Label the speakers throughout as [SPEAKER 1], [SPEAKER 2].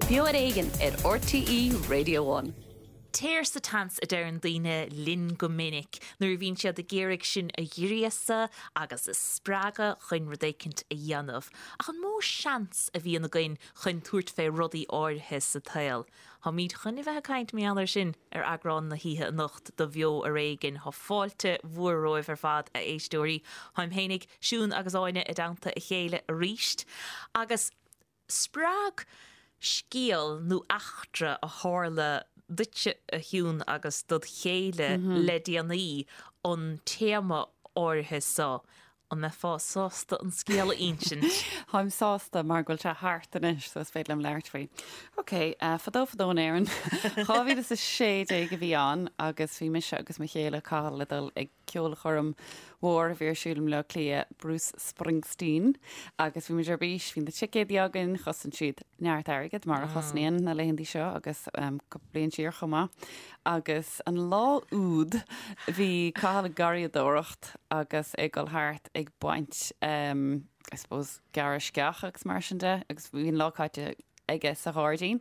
[SPEAKER 1] Beo ar Éigean ar RTÉ Radio One.
[SPEAKER 2] Téir sa tseans a deireann daoine linn go minic nuair a bhíonn siad ag iarraidh sinn a ghríosadh agus a spreagadh chun rud éicint a dhéanamh. Ach an mó seans a bhíonn againn chun tabhairt fé rudaí áirithe sa tsaol? Táimid chun a bheith ag caint mar gheall air sin ar eagrán na hoíche anocht de Bheo Ar Éigean. Tá fáilte mhór romhaibh ar fad, a éisteoirí. Táim fhéinig, Siún agus Áine i dteannta a chéile aríst. Agus spreag scéal nó eachtra a tharla duitse, a Shiún, agus dod chéile le déanaí an téama áirithe so. An mbeifeá sásta an scéal a insint?
[SPEAKER 3] Táim sásta mar go bhfuil sé thart anois so is féidir liom labhairt faoi. Ok, fadó fadó in Éirinn, 2016 a bhí ann agus bhí mise agus mo chéile Cathal le dul ag ceolchoirm mhór a bhí ar siúl i mBleá Cliath, Bruce Springsteen, agus bhí muid ar bís, bhí na ticéadaí againn, chosain siad neart airgid mar a chosnaíonn na laethanta seo agus cúpla bliain siar chomh maith. Agus an lá úd bhí Cathal ag garraíodóireacht agus é ag dul thart ag baint I suppose gearradh sceach agus mar sin de agus bhí an lá caite aige sa ghairdín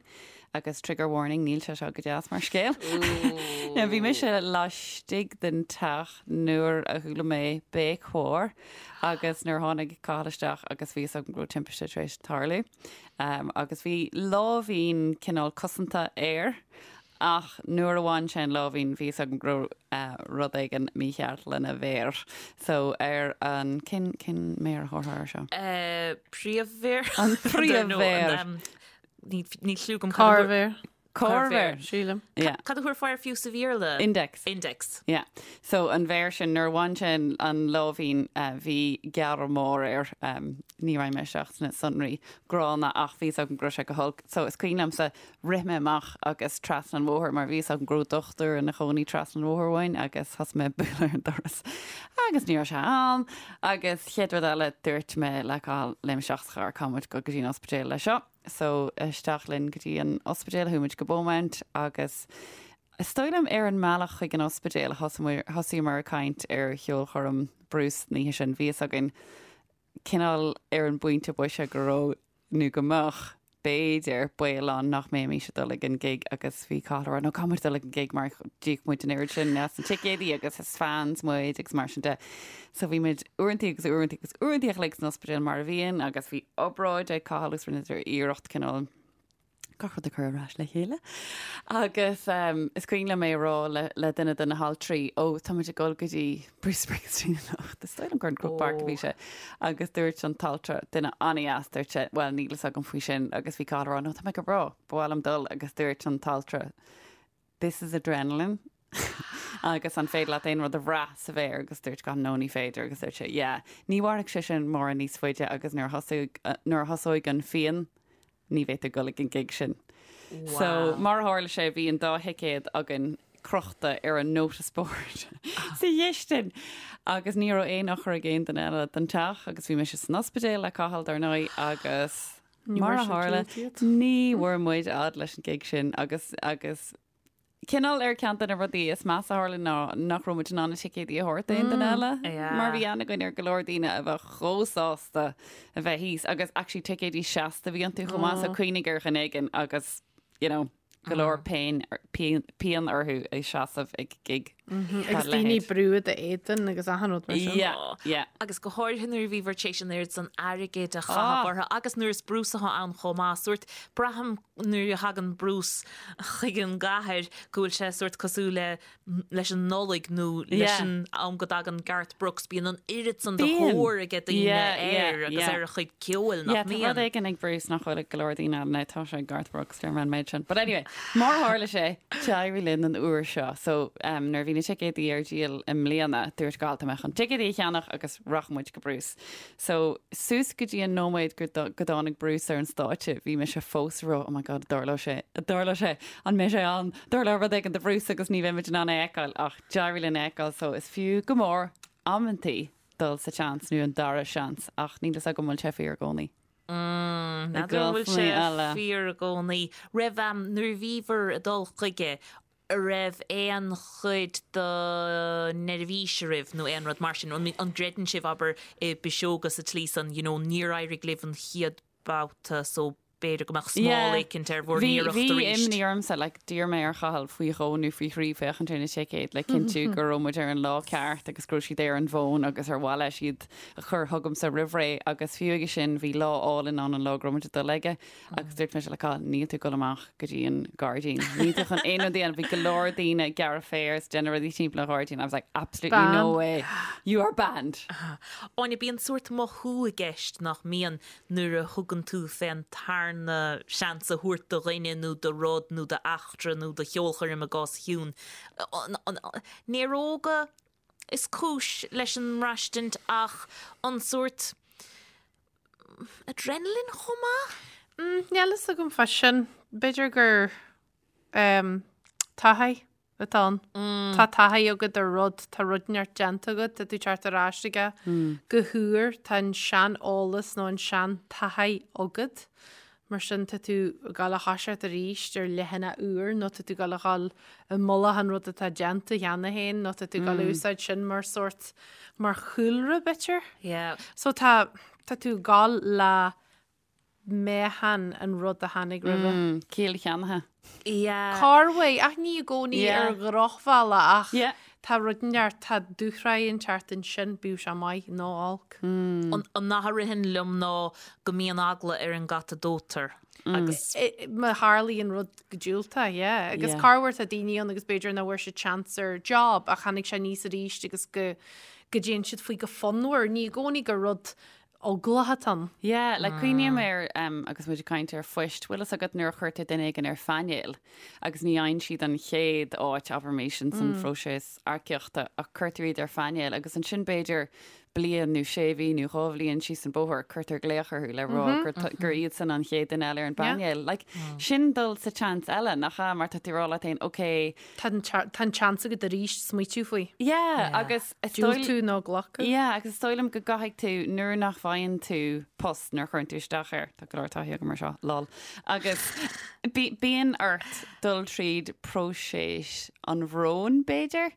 [SPEAKER 3] agus trigger warning níl sé seo go deas mar scéal. Now bhí mise laistigh den teach nuair a chuala mé béic mhór agus nuair a tháinig Cathal isteach agus bhí fhios agam go raibh timpiste tar éis tarlú. Agus bhí láimhín cineál cosanta air Ach nuair a bhain sé an láimhín bhí fhios agam go raibh rud éigin mícheart lena mhéar. So ar an, cén, cén méar a thabharfá air seo?
[SPEAKER 2] Príomh-mhéar?
[SPEAKER 3] An príomh-mhéar.
[SPEAKER 2] Níl cliú agam.
[SPEAKER 4] Corrmhéar.
[SPEAKER 3] Corrmhéar.
[SPEAKER 4] Sílim.
[SPEAKER 3] Yeah.
[SPEAKER 2] Cad a thabharfá air fiú sa Bhéarla?
[SPEAKER 3] Index.
[SPEAKER 2] Index.
[SPEAKER 3] Yeah. So an mhéar sin, nuair a bhain sé an láimhín bhí gearradh mór air. Ní raghaidh mé isteach sna sonraí gránna ach bhí fhios agam go raibh sé go holc. So is cuimhin liomsa Rith mé amach agus trasna an bhóthair mar bhí fhios agam go raibh dochtúir ina chónaí trasna an bhóthair uainn agus thosaigh mé ag bualadh ar an doras agus ní raibh sé ann agus chéad rud eile dúirt mé le Cathal léim isteach sa charr caithfidh muid dul go dtí an ospidéal le seo. So isteach linn go dtí an ospidéal, chuaigh muid go Beaumont agus is dóigh liom ar an mbealach chuig an ospidéal a thosaíomar ag caint ar cheolchoirm Bruce an oíche sin. Bhí fhios againn cineál ar an bpointe boise go raibh, nó go mbeadh, b'fhéidir, baol ann nach mbeimis ag dul ag an gig agus bhí Cathal ag rá no caithfidh muid dul ag an gig mar d'íoc muid an oiread sin as na ticéadaí agus is fans muid agus mar sin de. So bhí muid uaireantaí agus uaireantaí agus uaireantaí a chloig san ospidéal mar a bhíonn agus bhí obráid ag Cathal agus rinneadar iarracht cineál gach rud a chur ar ais le chéile. Agus is cuimhin liom é a rá le duine de na haltraí, ó, tá muid ag dul go dtí Bruce Springsteen anocht, is dóigh liom gur in Croke Park a bhí sé. Agus dúirt an t-altra, duine an-dheas, dúirt sé, bhuel, níl fhios agam faoi sin. Agus bhí Cathal ag rá, no, tá mé go breá, ba mhaith liom dul. Agus dúirt an t-altra, this is adrenaline. Agus an féidir leat aon rud a bhrath sa mhéar? Agus dúirt Cathal, no, ní féidir. Agus dúirt sé, yeah, ní mhairfidh sé sin mórán níos faide agus nuair a thosóidh, nuair a thosóidh an phian, ní bheidh tú ag dul ag an gig sin. So, mar a tharla sé, bhí an dá thicéad againn crochta ar an notice board sa chistin agus ní raibh aon eochair ag aon duine eile den teach agus bhí mise san ospidéal le Cathal, dar ndóigh, agus mar a tharla, ní bhfuair muid fhad leis an gig sin agus agus Cineál ar ceann de na rudaí is measa a tharla ná nach raibh muid in ann na ticéadaí a thabhairt d'aon duine eile mar bhí aithne againn ar go leor daoine a bheadh chomh sásta a bheith thíos agus actually ticéadaí seasta a bhí iontu chomh maith so cuimhnigh ar dhuine éigin agus you know go leor pain pian orthu ag seasamh ag gig
[SPEAKER 4] dá Agus daoine ag brú i d'éadan agus achan rud mar sin.
[SPEAKER 3] Yeah, yeah.
[SPEAKER 2] Agus go háirithe nuair a bhíobhair tar éis an oiread san airgid a chaitheamh orthu agus nuair is Bruce atá ann chomh maith. Sórt braithim nuair a thagann Bruce chuig an gcathair go bhfuil sé sórt cosúil le leis an Nollaig nó leis an am go dtagann Garth Brooks, bíonn an oiread san de thóir aige daoine air agus ar a chuid ceoil, nach
[SPEAKER 3] mbíonn? Tá rud éigin ag Bruce nach bhfuil ag go leor daoine eile, now tá sé ag Garth Brooks, deir mé an méid sin. But anyway, mar a tharla sé, d'éirigh linn an uair seo. So nuair a bhí na ticéadaí ar díol i mbliana, dúirt Cathal tá mé chun ticéadaí a cheannach agus rachaidh muid go Bruce. So, suas go dtí an nóiméad go dtáinig Bruce ar an stáitse, bhí mise fós ag rá, oh my God, an dtarlóidh sé, an dtarlóidh sé, an mbeidh sé ann, tarlóidh rud éigin do Bruce agus ní bheidh muid in ann é a fheiceáil, ach d'éirigh linn é a fheiceáil, so is fiú go mór amantaí dul sa tseans nó an dara seans, ach níl fhios agam an bhfuil sé fíor i gcónaí.
[SPEAKER 2] Mm, n'fheadar an bhfuil sé fíor i gcónaí. Raibh, nuair a bhíobhair ag dul chuige, a' raibh aon chuid de neirbhís oraibh nó aon rud mar sin? An an gcreideann sibh, abair, i bpiseoga sa tslí san, you know, níor éirigh libh an chéad babhta so. b'fhéidir go mbeadh smál éicint ar bhur
[SPEAKER 3] n-iarracht arís. Bhí imní ormsa, like, d'iarr mé ar Chathal faoi dhó nó faoi thrí féachaint ar na ticéid le cinntiú go raibh muid ar an lá ceart agus go raibh siad ar an bhfón agus ar mhaith leis iad a chur chugamsa roimh ré agus fiú aige sin bhí lá álainn ann an lá go raibh muid ag dul aige agus dúirt mise le Cathal, níl tú ag dul amach go dtí an gairdín, níl tú chun aon rud a dhéanamh, bhí go leor daoine ag gearradh féir is déanamh rudaí timpeall an ghairdín, I was like absolutely no way, you are banned.
[SPEAKER 2] Áine, bíonn sórt mothú i gceist nach mbíonn nuair a thugann tú fén tarna seans a thabhairt do dhuine nó do rud nó d'eachtra nó do cheolchoirm i gcás Shiún. Néaróga is cúis leis an mbraistint ach an sórt adrenaline chomh maith?
[SPEAKER 4] Níl fhios agam fá sin. B'fhéidir gur taithí atá ann. Tá taithí agat ar rud, tá rud inteacht déanta agat, tá tú ag teacht ar ais aige go huair, tá an sean-eolas nó an sean-taithí agat. Mar sin tá tú ag gabháil a thoiseacht arís ar leathanach úr nó tá tú ag gabháil a dhul i mullach an rud atá déanta cheana féin nó tá tú ag gabháil a úsáid sin mar sórt, mar chúlra b'fhéidir.
[SPEAKER 2] Yeah.
[SPEAKER 4] So tá, tá tú ag gabháil le meáchan an rud a tháinig roimhe.
[SPEAKER 3] Mm, ciall cheannaithe.
[SPEAKER 2] Yeah.
[SPEAKER 4] Corruair, ach ní i gcónaí
[SPEAKER 3] Yeah.
[SPEAKER 4] ar dhrochbhealach ach
[SPEAKER 3] Yeah.
[SPEAKER 4] tá rud inteacht, tá dúshraith inteacht ansin, bíodh sé maith nó olc.
[SPEAKER 2] An an nath a ritheann liom ná go mbíonn eagla ar an gcat a dóitear agus
[SPEAKER 4] Má tharlaíonn rud go diúltach, yeah. Agus
[SPEAKER 3] Yeah.
[SPEAKER 4] corruair tá daoine ann agus b'fhéidir nach bhfuair siad seans ar job ach tháinig sé aníos arís agus go go dtéann siad faoi go fonnmhar. Ní i gcónaí gur rud eaglach atá ann.
[SPEAKER 3] Yeah, like cuimhním ar, um, agus muid ag caint ar phoist, bhfuil fhios agat nuair a chuirtear duine éigin ar phainéal agus ní fhaigheann siad an chéad áit, abraimis, in san phróiseas earcaíochta ach cuirtear iad ar phainéal agus ansin b'fhéidir bliain nó sé mhí nó dhá bhliain síos an bóthar cuirtear glaoch orthu le rá gur, gur iadsan an chéad duine eile ar an bpainéal. Like, sin dul sa tseans eile, nach ea? Mar tá tú ag rá leat féin, ok,
[SPEAKER 4] Tá an tá an tseans agat arís smaoitiú faoi.
[SPEAKER 3] Yeah, agus is dóigh
[SPEAKER 4] Diúltú nó glacadh.
[SPEAKER 3] Yeah, agus is dóigh liom go gcaithfidh tú, nuair nach bhfaigheann tú post nuair a chuireann tú isteach air, tá go leor taithí agam ar seo, lol, agus bíonn ort dul tríd próiseas an bhróin, b'fhéidir,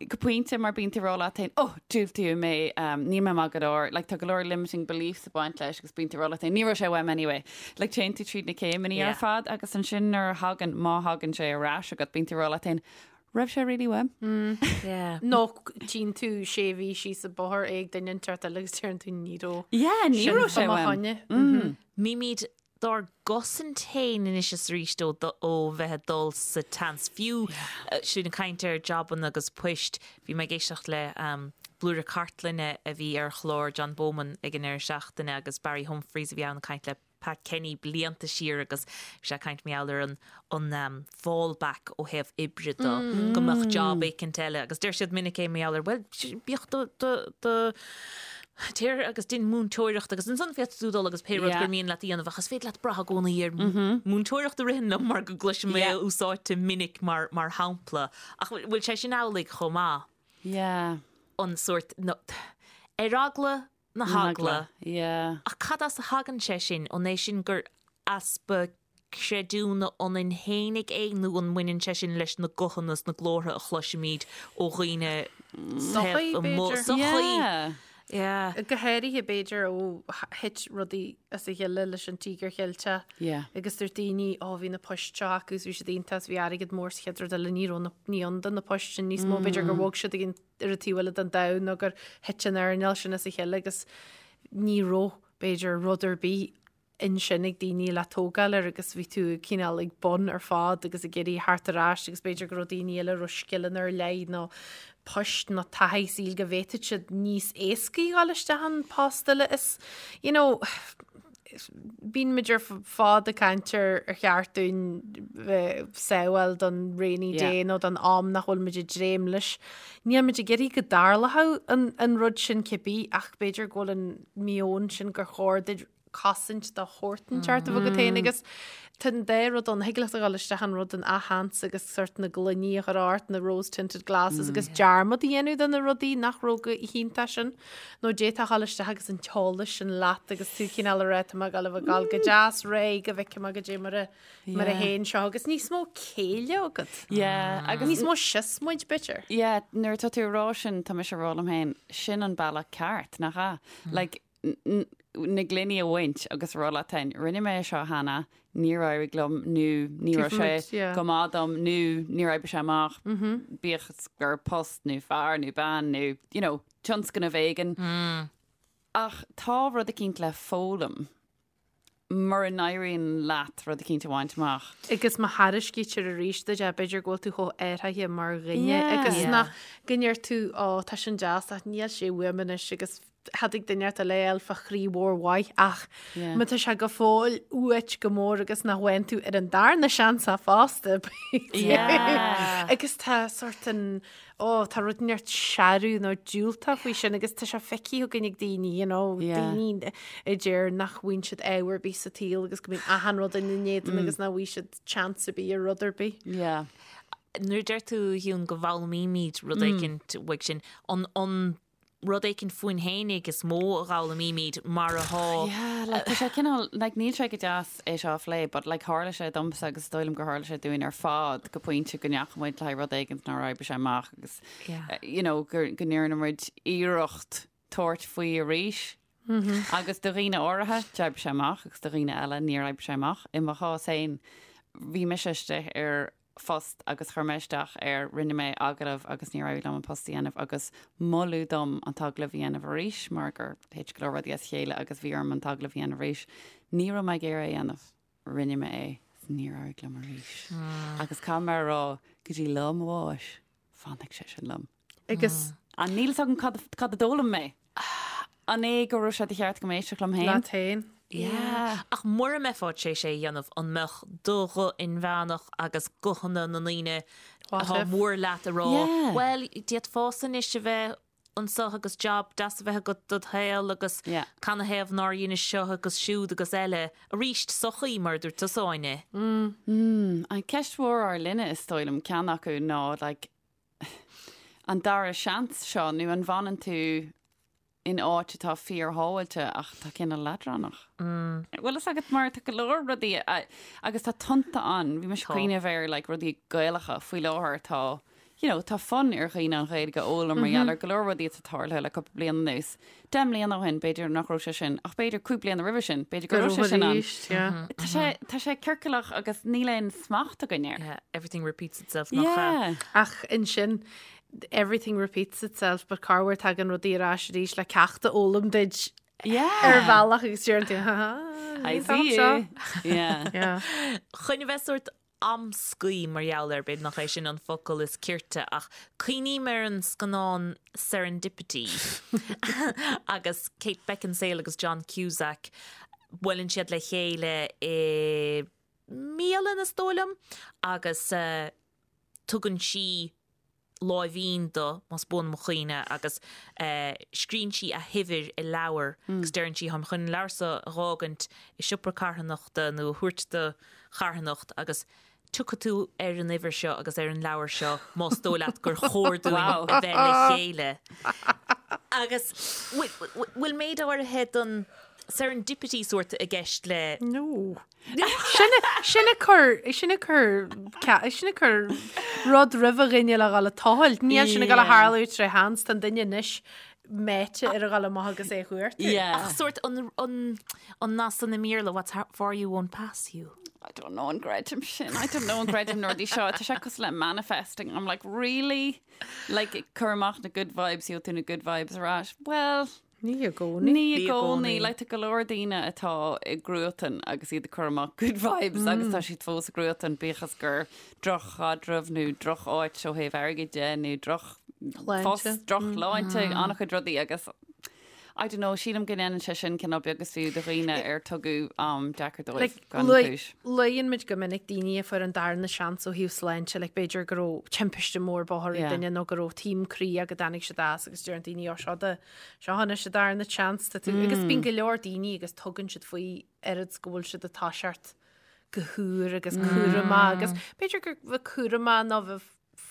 [SPEAKER 3] go pointe mar bíonn tú ag rá leat féin, oh, diúltaíodh mé, níl mé maith go leor, like tá go leor limiting beliefs ag baint leis agus bíonn tú ag rá leat féin, ní raibh sé uaim anyway. Like téann tú tríd na céimeanna
[SPEAKER 2] Yeah.
[SPEAKER 3] ar fad agus ansin nuair a thagann, má thagann sé ar ais agat, bíonn tú ag rá leat féin, raibh sé really uaim?
[SPEAKER 2] Yeah.
[SPEAKER 4] Nó tchíonn tú sé mhí síos an bóthar é ag duine inteacht eile agus deireann tú ní raibh
[SPEAKER 3] Yeah, ní
[SPEAKER 4] sin
[SPEAKER 3] raibh sé
[SPEAKER 4] fá mo
[SPEAKER 3] uaim.
[SPEAKER 4] choinne.
[SPEAKER 2] Bímid dár gcosaint féin anois is arís ó ó bheith ag dul sa tseans. Fiú sinn ag caint ar jabanna agus poist, bhí mé ag éisteacht le blúire cartlainne a bhí ar chlár John Bowman ag an deireadh seachtaine agus Barry Humphries a bhí ann ag caint le Pat Kenny blianta siar agus bhí sé ag caint mar gheall ar an an fallback ó thaobh oibre de, go mbeadh job éicint eile agus deir siad minic é mar gheall ar bhuel bíodh do do do téir agus dein múinteoireacht agus ansan féadfaidh tú dul agus pé rud gur mian leat a dhéanamh ach is féidir leat brath i gcónaí ar múinteoireacht a ritheann liom mar go gcloisim é úsáidte minic mar mar shampla ach bhfuil sé sin amhlaidh chomh maith?
[SPEAKER 3] Yeah.
[SPEAKER 2] An sórt no, ar eagla na heagla.
[SPEAKER 3] Yeah.
[SPEAKER 2] Ach cad as a thagann sé sin? An é sin gur easpa creidiúna ionainn fhéinig é nó an mbaineann sé sin leis na guthanna is na glórtha a chloisimid ó dhaoine
[SPEAKER 4] Sochaí,
[SPEAKER 2] taobh amuigh?
[SPEAKER 4] b'fhéidir.
[SPEAKER 2] Sochaí.
[SPEAKER 3] Yeah.
[SPEAKER 2] Yeah.
[SPEAKER 4] Go háirithe b'fhéidir ó thit rudaí as a chéile leis an Tíogar Cheilteach
[SPEAKER 3] Yeah.
[SPEAKER 4] agus dúirt daoine ó bhí na poist seo acu is bhí siad iontach is bhí airgead mór sa chéad rud eile ní raibh na ní ann do na poist sin níos mó b'fhéidir gur bhog siad ag an ar an taobh eile den domhan nó gur thit an earnáil sin as a chéile agus ní raibh, b'fhéidir, rud ar bith ansin ag daoine le tógáil air agus bhí tú cineál ag bun ar fad agus ag iarraidh theacht ar ais agus b'fhéidir go raibh daoine eile a raibh scileanna ar leith nó poist nó taithí saoil go bhféadfadh siad níos éascaí dhul isteach an post eile is, you know, Bíonn muid ar fad ag caint ar ar cheart dúinn bheith sábháil don rainy day nó don am nach bhfuil muid ag dréim leis. Níl muid ag iarraidh go dtarlódh an an rud sin cibé ach b'fhéidir go bhfuil an meon sin gur chóir duit cosaint de shórt inteacht a bheith agat féin agus Tá an dá rud ann, thig leat a dhul isteach an rud an athsheans agus sort na gloiní a chur ort, na rose tinted glasses agus dearmad a dhéanamh de na rudaí nach raibh go hiontach sin. Nó d'fhéadfá a dhul isteach agus an t-eolas sin leat agus tú cineál ag rá tá mé ag dul a bheith ag dul go deas réidh go bhfeicfidh mé goidé mar a mar a théann seo agus níos mó céille agat.
[SPEAKER 3] Yeah, agus
[SPEAKER 4] Níos mó siosmaid b'fhéidir.
[SPEAKER 3] Yeah, nuair atá tú ag rá sin, tá mise ag rá liom féin, sin an bealach ceart, nach ea? Like, na gloiní a bhaint agus a rá leat féin, rinne mé é seo cheana, níor éirigh liom nó ní raibh sé go maith dom nó níor oibrigh sé amach, bíodh is gur post nó fear nó bean nó, you know, tionscnamh éigin. Ach tá rud eicínt le foghlaim mura n-éiríonn leat rud eicínt a bhaint amach.
[SPEAKER 4] Agus má thairiscítear arís duit é, b'fhéidir go bhfuil tú chomh athraithe mar dhuine agus nach go ndeir tú, ó, tá sin deas ach níl sé uaim anois agus thiocfadh duine ort eile a fháil fá chroí mhór mhaith ach má tá sé go fóill uait go mór agus nach bhfaigheann tú ar an darna seans é fosta agus tá sort an ó tá rud inteacht searbh nó diúltach faoi sin agus tá sé feicthe againn ag daoine you know daoine a deir nach bhfaigheann siad ádh ar bith sa tsaol agus go mbíonn achan rud ina n-éadan agus nach bhfaighidh siad chance ar bith ar rud ar bith.
[SPEAKER 3] Yeah.
[SPEAKER 2] Nuair a deir tú a Shiún go bhfoghlaimímid rud éicint uaidh sin, an an rud éicint fúinn fhéinig is mó a dh'fhoghlaimímid mar atá.
[SPEAKER 3] Yeah, like tá sé cineál, like níl sé go deas é seo a phlé, but like tharla sé domsa agus is dóigh liom gur tharla sé dúinn ar fad go pointe go ndeachaigh muid le haghaidh rud éigin nár oibrigh sé amach agus
[SPEAKER 2] Yeah.
[SPEAKER 3] you know go go ndearna muid iarracht tabhairt faoi arís. Agus do dhaoine áirithe d'oibrigh sé amach agus do dhaoine eile níor oibrigh sé amach. I mo chás féin bhí mise istigh ar phost agus chuir mé isteach air, rinne mé agallamh agus níor éirigh liom an post a dhéanamh agus moladh dom an t-agallamh a dhéanamh arís mar gur thit go leor rudaí as a chéile agus bhí orm an t-agallamh a dhéanamh arís. Ní raibh mé ag iarraidh é a dhéanamh. Rinne mé é is níor éirigh liom arís. Agus caithfidh mé a rá go dtí lá mo bháis, fanfaidh sé sin liom.
[SPEAKER 4] Agus.
[SPEAKER 3] An níl fhios agam cad cad a d'fhoghlaim mé. An é go raibh sé de cheart agam éisteacht liom féin?
[SPEAKER 4] Leat féin.
[SPEAKER 2] Yeah. Ach mura mbeifeá tar éis é a dhéanamh, an mbeadh do ghuth inmheánach agus guthanna na ndaoine atá mór leat a rá, bhuel, d'fhéadfása anois a bheith anseo agus job deas a bheith agat dod shaol agus canathaobh nár dheinis seo agus siúd agus eile. Arís, sochaí, mar a dúirt tusa, Áine.
[SPEAKER 3] An ceist mhór ár linne, is dóigh liom, ceann acu ná like, an dara seans seo nó an bhfanann tú in áit atá fíorshábháilte ach atá cineál leadránach? Bhfuil fhios agat mar tá go leor rudaí agus tá tonnta ann, bhí mise ag cuimhneamh ar like rudaí Gaelacha faoi láthair tá you know tá fonn ar dhaoine an Ghaeilge a fhoghlaim mar gheall ar go leor rudaí atá tarlaithe le cúpla bliain anuas. Deich mbliana ó shin b'fhéidir nach raibh sé sin ach b'fhéidir 5 bliana roimhe sin b'fhéidir go raibh sé sin ann. Tá sé tá sé ciorcalach agus níl aon smacht againn air.
[SPEAKER 2] Yeah, everything repeats itself nach ea?
[SPEAKER 3] Yeah.
[SPEAKER 4] Ach ansin everything repeats itself but corruair tagann rudaí ar ais arís le ceacht a fhoghlaim duit
[SPEAKER 3] Yeah.
[SPEAKER 4] ar bhealach agus deireann tú ha ha
[SPEAKER 3] I see you. Yeah.
[SPEAKER 4] Yeah.
[SPEAKER 2] Chun a bheith sórt amscaí mar gheall air, b'fhéidir nach é sin an focal is cirte, ach cuimhním ar an scannán Serendipity agus Kate Beckinsale agus John Cusack, buaileann siad le chéile i mbialann, is dóigh liom, agus tugann sí láimhín dó, más buan mo chuimhne, agus scríonn sí a huimhir i leabhar agus deireann sí, táim chun an leabhar seo a dh'fhágaint i siopa carthanachta nó a thabhairt do charthanacht agus tiocfaidh tú ar an uimhir seo agus ar an leabhar seo más dóigh leat gur chóir dúinn a bheith le chéile. Agus bhfuil méid áirithe den serendipity sórt i gceist le.
[SPEAKER 4] No. Sin ag cur, sin ag cur, sin ag cur rud roimh dhuine le dhul ag tochailt. Níl sin ag dul a tharlú tré sheans, tá an duine anois meáite ar a dhul amach agus é a chuartú.
[SPEAKER 2] Ach sórt an, an, an nath san i mBéarla, what's for you won't pass you.
[SPEAKER 3] I don't know an gcreidim sin. I don't know an gcreidim na rudaí seo. Tá sé cosúil le manifesting. I'm like, really? Like, cuir amach na good vibes, gheobhaidh tú na good vibes ar ais. Well,
[SPEAKER 4] Ní i gcónaí.
[SPEAKER 3] Ní i gcónaí. Like tá go leor daoine atá i gcruatan agus iad ag cur amach good vibes agus tá siad fós i gcruatan bíodh is gur droch-chaidreamh nó droch-áit ó thaobh airgid de nó droch-phost, droch-shláinte, an-chuid rudaí agus I don't know, sílim go ndéanann sé sin cineál beag is fiú do dhaoine ar tugadh am deacair dóibh gan chúis.
[SPEAKER 4] Luann muid go minic daoine a fuair an darna seans ó thaobh sláinte, like b'fhéidir go raibh timpiste mór bóthair ag duine nó go raibh taom croí go dtáinig siad as agus deireann daoine ó seo do Seo anois an darna chance tá tú agus bíonn go leor daoine agus tugann siad faoi oiread go bhfuil siad ag toiseacht go húr agus cúramach agus b'fhéidir gur bheith cúramach nó bheith.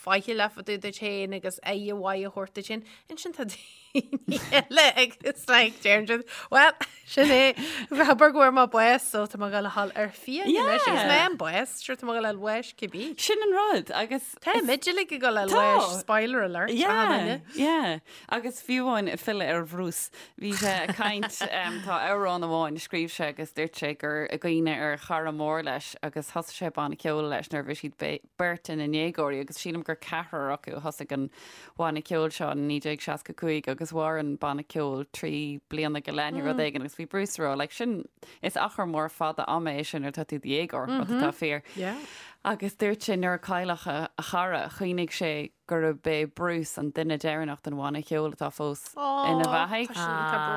[SPEAKER 4] faichilleach fá dtaobh duit féin agus aire mhaith a thabhairt duit féin. Ansin tá daoine eile agus like deireann siad, well, sin é, abair go bhfuair mé bás so tá mé ag dul a dhul ar fiaigh anois agus mé an bás, sure tá mé ag dul a fháil bháis cibé.
[SPEAKER 3] Sin an rud agus
[SPEAKER 4] Tá muid uilig ag dul a fháil bháis, spoiler alert, achan duine.
[SPEAKER 3] Yeah, yeah. Agus fiú amháin ag filleadh ar Bhruce, bhí sé ag caint, tá amhrán amháin a scríobh sé agus dúirt sé gur i gcuimhne ar chara mór leis agus thosaigh sé banna ceoil leis nuair a bhí siad beirt ina ndéagóirí agus sílim gur ceathrar acu a thosaigh an banna ceoil seo in 1965 agus mhair an banna ceoil 3 bliana go leith nó rud éigin agus bhí Bruce ag rá like sin is achar mór fada ama é sin nuair atá tú i do dhéagóir, rud atá fíor. Agus dúirt sé nuair a cailleadh a chara chuimhnigh sé gurb é Bruce an duine deireanach den bhanna ceoil atá fós ina bheathaidh.
[SPEAKER 4] Tá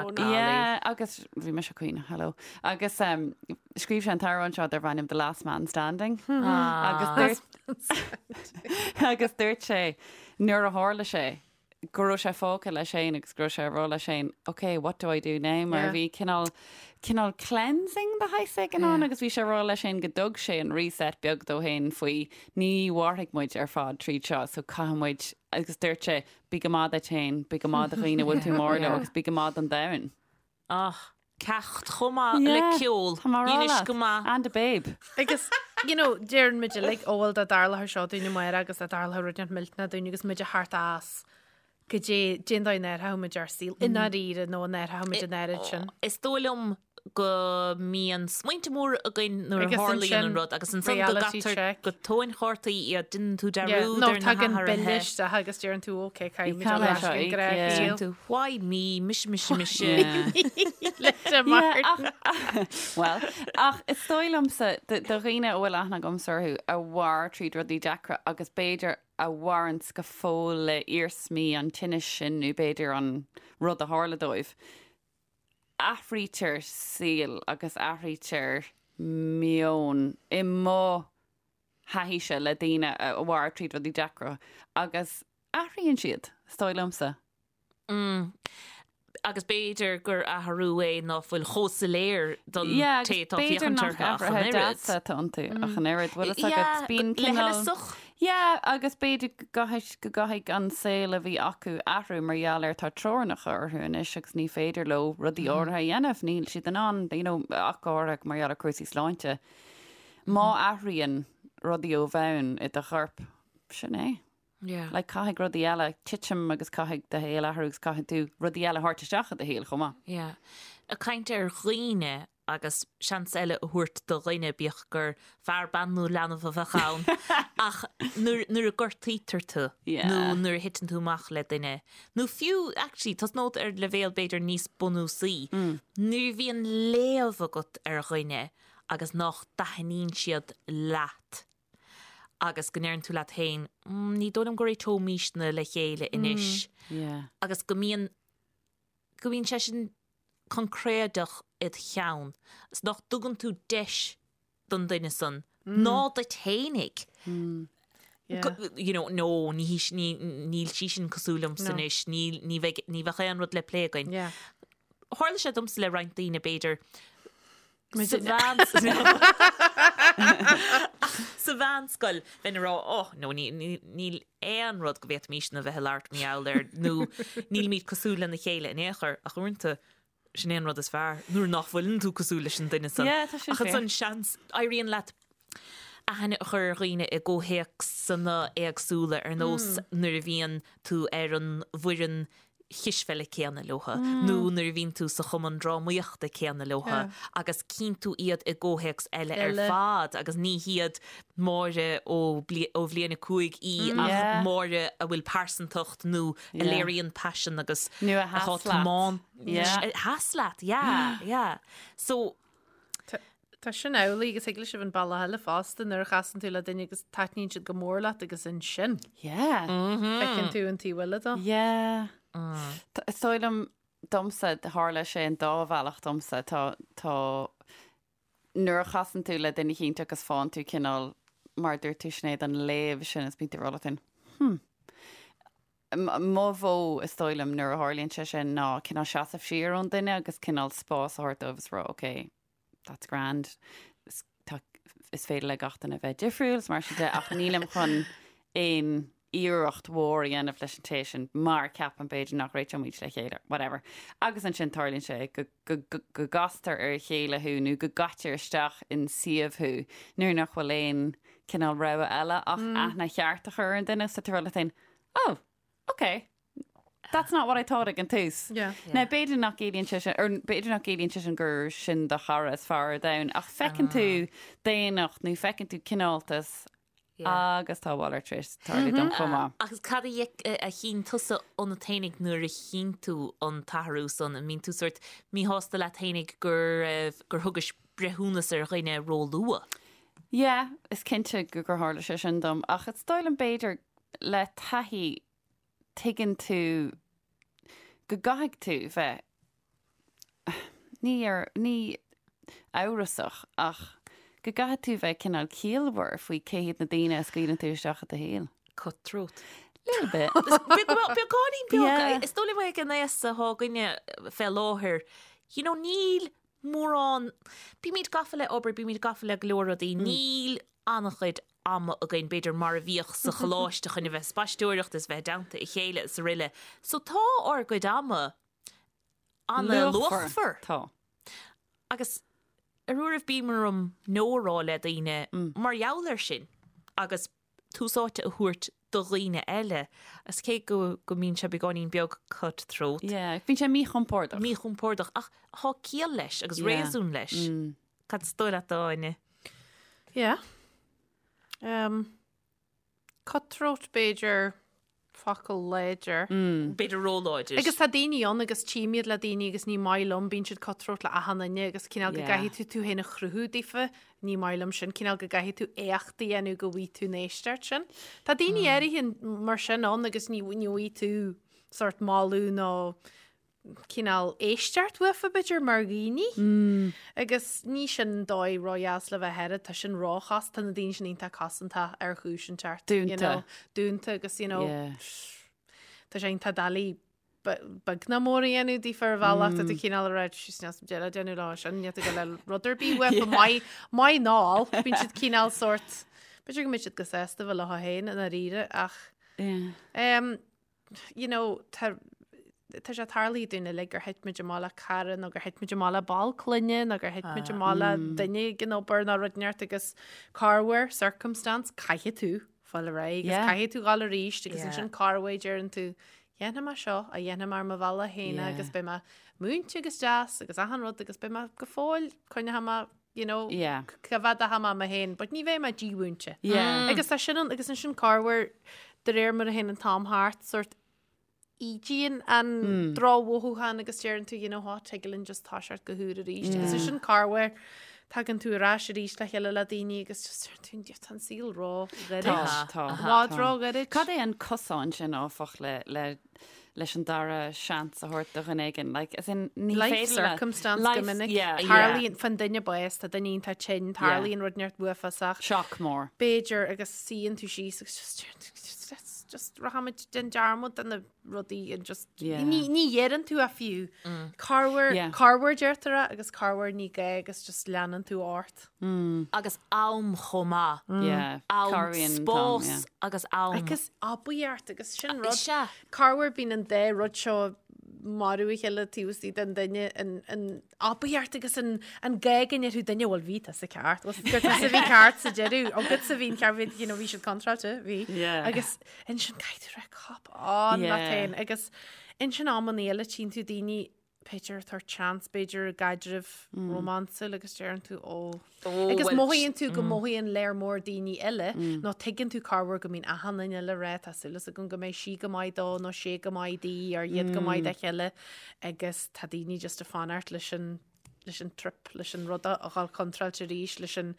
[SPEAKER 4] sin brón.
[SPEAKER 3] Yeah, agus bhí mise ag caoineadh, hello. Agus um, scríobh sé an t-amhrán seo darb ainm The Last Man Standing. Agus dúirt agus dúirt sé nuair a tharla sé go raibh sé fágtha leis féin agus go raibh sé ag rá leis féin, ok, what do I do now? Mar bhí cineál cineál cleansing de shaghas éigin ann agus bhí sé ag rá leis féin go dtug sé an reset beag dó féin faoi ní mhairfidh muid ar fad tríd seo so caithfidh muid agus dúirt sé bí go maith duit féin, bí go maith do dhaoine a bhfuil tú mór leo agus bí go maith don domhan.
[SPEAKER 2] Ach, ceacht chomh maith le ceol.
[SPEAKER 3] Tá mé ag rá
[SPEAKER 2] Dheinis
[SPEAKER 3] leat.
[SPEAKER 2] go maith.
[SPEAKER 3] And a babe.
[SPEAKER 4] Agus, you know, deireann muid uilig, ó bhuel dá dtarlódh seo dúinn amárach agus dá dtarlódh rud inteacht millteanach dúinn agus muid a theacht as goidé cén dóigh a n-athródh muid ár saol i ndáiríre nó an athródh muid an oiread sin.
[SPEAKER 2] Is dóigh liom go mbíonn smaointe móra againn nuair a
[SPEAKER 4] Agus
[SPEAKER 2] tharlaíonn
[SPEAKER 4] ansin
[SPEAKER 2] an rud agus ansan go
[SPEAKER 4] reality
[SPEAKER 2] gcaitear
[SPEAKER 4] check.
[SPEAKER 2] go tóin chártaí iad, déanann tú
[SPEAKER 4] Yeah,
[SPEAKER 2] dearúd
[SPEAKER 4] nó
[SPEAKER 2] ar na
[SPEAKER 4] tagann bille
[SPEAKER 2] hathruithe.
[SPEAKER 4] isteach agus deireann tú ok, caithfidh muid
[SPEAKER 3] Caithfidh
[SPEAKER 4] dul ar ais
[SPEAKER 3] seo
[SPEAKER 4] go
[SPEAKER 3] íoc,
[SPEAKER 4] gnách
[SPEAKER 3] yeah.
[SPEAKER 2] Deireann tú why me, mise, mise, mise.
[SPEAKER 3] Yeah.
[SPEAKER 4] Le Martin.
[SPEAKER 3] Well, ach is dóigh liomsa do dhaoine a bhfuil aithne agamsa orthu a mhair tríd rudaí deacra agus b'fhéidir a mhaireanns go fóill le iarsmaí an tinnis sin nó b'fhéidir an rud a tharla dóibh. Athraítear saol agus athraítear meon i mo thaithíse le daoine a mhair tríd rudaí deacra agus athraíonn siad, is dóigh liomsa.
[SPEAKER 2] Mm. Agus b'fhéidir gur athrú é ná fuil chomh soiléir don
[SPEAKER 3] Yeah,
[SPEAKER 2] té
[SPEAKER 3] agus
[SPEAKER 2] atá ag
[SPEAKER 3] b'fhéidir
[SPEAKER 2] féachaint
[SPEAKER 3] nach
[SPEAKER 2] orthu ach an
[SPEAKER 3] athruithe
[SPEAKER 2] oiread.
[SPEAKER 3] deasa atá iontu ach an oiread. Bhfuil fhios agat,
[SPEAKER 2] Yeah,
[SPEAKER 3] bíonn
[SPEAKER 2] le
[SPEAKER 3] cineál.
[SPEAKER 2] huileasach.
[SPEAKER 3] Yeah, agus b'fhéidir go gcaithfidh, go gcaithfidh an saol a bhí acu athrú mar gheall ar tá teorainneacha orthu anois agus ní féidir leo rudaí áirithe a dhéanamh, níl siad in ann, you know, ach go háirithe mar gheall ar cúrsaí sláinte. Má athraíonn rudaí ó bhonn i do chorp, sin é.
[SPEAKER 2] Yeah.
[SPEAKER 3] Like caithfidh rudaí eile titim agus caithfidh do shaol athrú agus caithfidh tú rudaí eile a thabhairt isteach i do shaol chomh maith.
[SPEAKER 2] Yeah. Ag caint ar dhaoine agus seans eile a thabhairt do dhuine, bíodh gur fear, bean nó leanbh a bheadh ann, ach nuair, nuair a gortaítear tú
[SPEAKER 3] Yeah.
[SPEAKER 2] nó nuair a thiteann tú amach le duine, nó fiú, actually, tosnód ar leibhéal b'fhéidir níos bunúsaí, nuair a bhíonn léamh agat ar dhuine agus nach dtaitníonn siad leat, agus go ndeireann tú leat féin, ní dóigh liom go réiteoimísne le chéile anois agus go mbíonn, go mbíonn sé sin coincréideach id cheann is nach dtugann tú deis don duine san ná duit fhéinig. You know, no, ní hí, ní, níl sí sin cosúil liomsa anois, níl, ní bheidh, ní bheadh aon rud le plé againn. Tharla sé domsa le roinnt daoine, b'fhéidir, Sa Sa mheánscoil, bheinn ag rá, oh, no, níl aon rud go bhféadfaimísne a bheith ag labhairt mar gheall air, nó nílimid cosúil lena chéile in aon chor, ach uaireanta, sin é an rud is fearr, nuair nach bhfuileann tú cosúil leis an duine san.
[SPEAKER 3] Yeah, tá sin
[SPEAKER 2] Ach ansan, seans, éiríonn leat aithne a chur ar dhaoine i gcomhthéacsanna éagsúla, ar nós nuair a bhíonn tú ar an bhfoireann chispheile céanna leotha nó nuair a bhíonn tú sa chumann drámaíochta céanna leotha agus cíonn tú iad i gcomhthéacs eile ar fad agus ní hiad Máire ó ó bhliain 5 í ach Máire a bhfuil pearsantacht nó a léiríonn paisean agus
[SPEAKER 3] Nó a sheas leat.
[SPEAKER 2] A sheas leat, yeah, yeah. So.
[SPEAKER 4] Tá sin amhlaidh agus thig leis sibh an bealach eile fosta nuair a chasann tú le duine agus taitníonn siad go mór leat agus ansin.
[SPEAKER 3] Yeah.
[SPEAKER 4] Feiceann tú an taobh eile dó.
[SPEAKER 3] Yeah. Is dóigh liom domsa, tharla sé an dá bhealach domsa, tá, tá, nuair a chasann tú le duine eicínt agus faigheann tú cineál, mar a dúirt tú Sinéad, an léamh sin is bíonn tú ag rá leat féin, hmm. Mo mhodh, is dóigh liom, nuair a tharlaíonn sé sin ná cineál seasamh siar ón duine agus cineál spás a thabhairt dóibh is rá, okay, that's grand, is, tá, is féidir le gach duine bheith difriúil is mar sin de ach nílim chun aon iarracht mhór a dhéanamh leis an té sin mar ceapaim b'fhéidir nach réiteoimid le chéile, whatever. Agus ansin tarlaíonn sé go go go gcastar ar a chéile thú nó go gcaitear isteach in suíomh thú nuair nach bhfuil aon cineál rogha eile ach aithne cheart a chur ar an duine so tá tú leat féin, oh, ok, that's not what I thought ag an tús.
[SPEAKER 4] Yeah.
[SPEAKER 3] Now b'fhéidir nach gciallaíonn sé sin, or b'fhéidir nach gciallaíonn sé sin gur sin do chara is fearr ar domhan, ach feiceann tú daonnacht nó feiceann tú cineáltas agus tá a mhalairt tar éis tarlú dom chomh maith.
[SPEAKER 2] Agus cad a chinn tusa ionat fhéinig nuair a chinn tú an t-athrú san? An mbíonn tú sórt míshásta leat fhéinig gur gur thugais breithiúnas ar dhuine ró-luath?
[SPEAKER 3] Yeah, is cinnte gur tharla sé sin dom, ach is dóigh liom b'fhéidir le taithí tuigeann tú go gcaithfidh tú bheith, ní ar, ní amhrasach ach go gcaithfidh tú bheith cineál ciallmhar faoi cé hiad na daoine a scaoileann tú isteach i do shaol.
[SPEAKER 2] Cutthroat.
[SPEAKER 3] Little bit.
[SPEAKER 2] Beagáinín beag. Is dóigh liom ag an aos atá againne fé láthair, you know, níl mórán, bímid gafa le obair, bímid gafa le go leor rudaí, níl an-chuid ama againn, b'fhéidir, mar a bhíodh sa choláiste chun a bheith ag spaisteoireacht is bheith i dteannta a chéile is aroile. So tá ár gcuid ama an-luachmhar.
[SPEAKER 3] Tá.
[SPEAKER 2] Agus ar uairibh bíonn orm no a rá le daoine mar gheall air sin agus tús áite a thabhairt do dhaoine eile. Is cé go go mbíonn sé beagáinín beag cut throat.
[SPEAKER 3] Yeah, bíonn sé míchompordach.
[SPEAKER 2] Míchompordach ach tá ciall leis agus réasún leis. Cad is dóigh leat, Áine?
[SPEAKER 4] Yeah. Um, cutthroat b'fhéidir focal láidir.
[SPEAKER 2] Mm. B'fhéidir róláidir.
[SPEAKER 4] Agus tá daoine ann agus tchím iad le daoine agus ní maith liom, bíonn siad cutthroat le achan duine agus cineál go gcaithfidh tú tú féin a chruthú daofa, ní maith liom sin, cineál go gcaithfidh tú éacht a dhéanamh go bhfaighidh tú an éisteacht sin. Tá daoine áirithe mar sin ann agus ní ní bhfaighidh tú sort moladh nó cineál éisteacht uafa b'fhéidir mar dhaoine. Agus ní sin dóigh ródheas le bheith air, tá sin róchos, tá na daoine sin iontach cosanta ar chúis inteacht.
[SPEAKER 3] Dúnta.
[SPEAKER 4] You know, dúnta agus you know,
[SPEAKER 3] Yeah.
[SPEAKER 4] tá sé iontach doiligh beag ná mór a dhéanamh daofa ar bhealach, tá tú cineál ag rá síos níl deireadh déanamh lá sin, níl tú le rud ar bith uafa maith, maith ná olc, bíonn siad cineál sórt, b'fhéidir go mbeidh siad go sásta bheith leo féin i ndáiríre ach
[SPEAKER 3] Yeah.
[SPEAKER 4] um, you know, tá tá sé tarlaithe dúinn uilig gur thit muid amach le cara nó gur thit muid amach le ball clainne nó gur thit muid amach le duine ag an obair nó rud inteacht agus corruair circumstance caithfidh tú fáil ar aghaidh agus
[SPEAKER 3] Yeah.
[SPEAKER 4] caithfidh tú dhul arís agus
[SPEAKER 2] Yeah.
[SPEAKER 4] ansin corruair deireann tú dhéanfaidh mé seo a dhéanfaidh mé ar mo bhealach féin
[SPEAKER 3] Yeah.
[SPEAKER 4] agus beidh mé múinte agus deas agus achan rud agus beidh mé go fóill coinneoidh mé you know,
[SPEAKER 3] Yeah.
[SPEAKER 4] coimhéadfaidh mé mé féin, but ní bheidh mé dímhúinte.
[SPEAKER 3] Yeah.
[SPEAKER 4] Agus tá sin an, agus ansin corruair de réir mar a théann an t-am thart, sort ídíonn an drochmhothúchán agus deireann tú, you know what, tig linn just toiseacht go húr arís. Agus ansin corruair tagann tú ar ais arís le chéile le daoine agus just deireann tú, tá an saol ró-ghairid.
[SPEAKER 3] Tá, tá.
[SPEAKER 4] I bhfad ró-ghairid.
[SPEAKER 3] Cad é an cosán sin áfach le, le leis an dara seans a thabhairt do dhuine éigin? Like, as in, ní
[SPEAKER 4] Life
[SPEAKER 3] féidir le-
[SPEAKER 4] circumstance
[SPEAKER 3] Life-
[SPEAKER 4] go minic.
[SPEAKER 3] yeah, yeah.
[SPEAKER 4] Tarlaíonn faoin duine bás, tá duine iontach tinn, tarlaíonn rud inteacht uafásach.
[SPEAKER 3] Shock mór.
[SPEAKER 4] B'fhéidir agus suíonn tú síos agus just just just just rachaimid déan dearmad de na rudaí and just
[SPEAKER 3] Yeah.
[SPEAKER 4] ní ní dheireann tú a fiú. Corruair
[SPEAKER 3] Yeah.
[SPEAKER 4] corruair deirtear é agus corruair ní gá agus just leanann tú ort.
[SPEAKER 2] Agus am chomh maith.
[SPEAKER 3] Yeah.
[SPEAKER 2] Am,
[SPEAKER 3] Cabhraíonn an t-am,
[SPEAKER 2] spás
[SPEAKER 3] yeah.
[SPEAKER 2] agus am.
[SPEAKER 4] Agus aibíocht agus sin rud.
[SPEAKER 2] Sea.
[SPEAKER 4] Corruair bíonn an dá rud seo ag marú a chéile taobh istigh den duine, an, an aibíocht agus an, an gá go ndéarfadh duine bhuel bhí tusa ceart, bhuel gur tusa a bhí ceart sa deireadh, agatsa a bhí an ceart, bhí, you know, bhí siad contráilte, bhí.
[SPEAKER 3] Yeah.
[SPEAKER 4] Agus ansin caithfidh tú rá cop on
[SPEAKER 3] Yeah.
[SPEAKER 4] leat féin agus ansin amanna eile tchíonn tú daoine b'fhéidir ag tabhairt seans, b'fhéidir i gcaidreamh rómánsúil agus deireann tú ó. Agus mothaíonn tú go mothaíonn léar mór daoine eile nó tuigeann tú corruair go mbíonn achan duine eile ag rá tá súil agam go mbeidh sí go maith dó nó sé go maith di or iad go maith dá chéile agus tá daoine just ag fanacht leis an leis an trip, leis an rud a dhul contráilte arís, leis an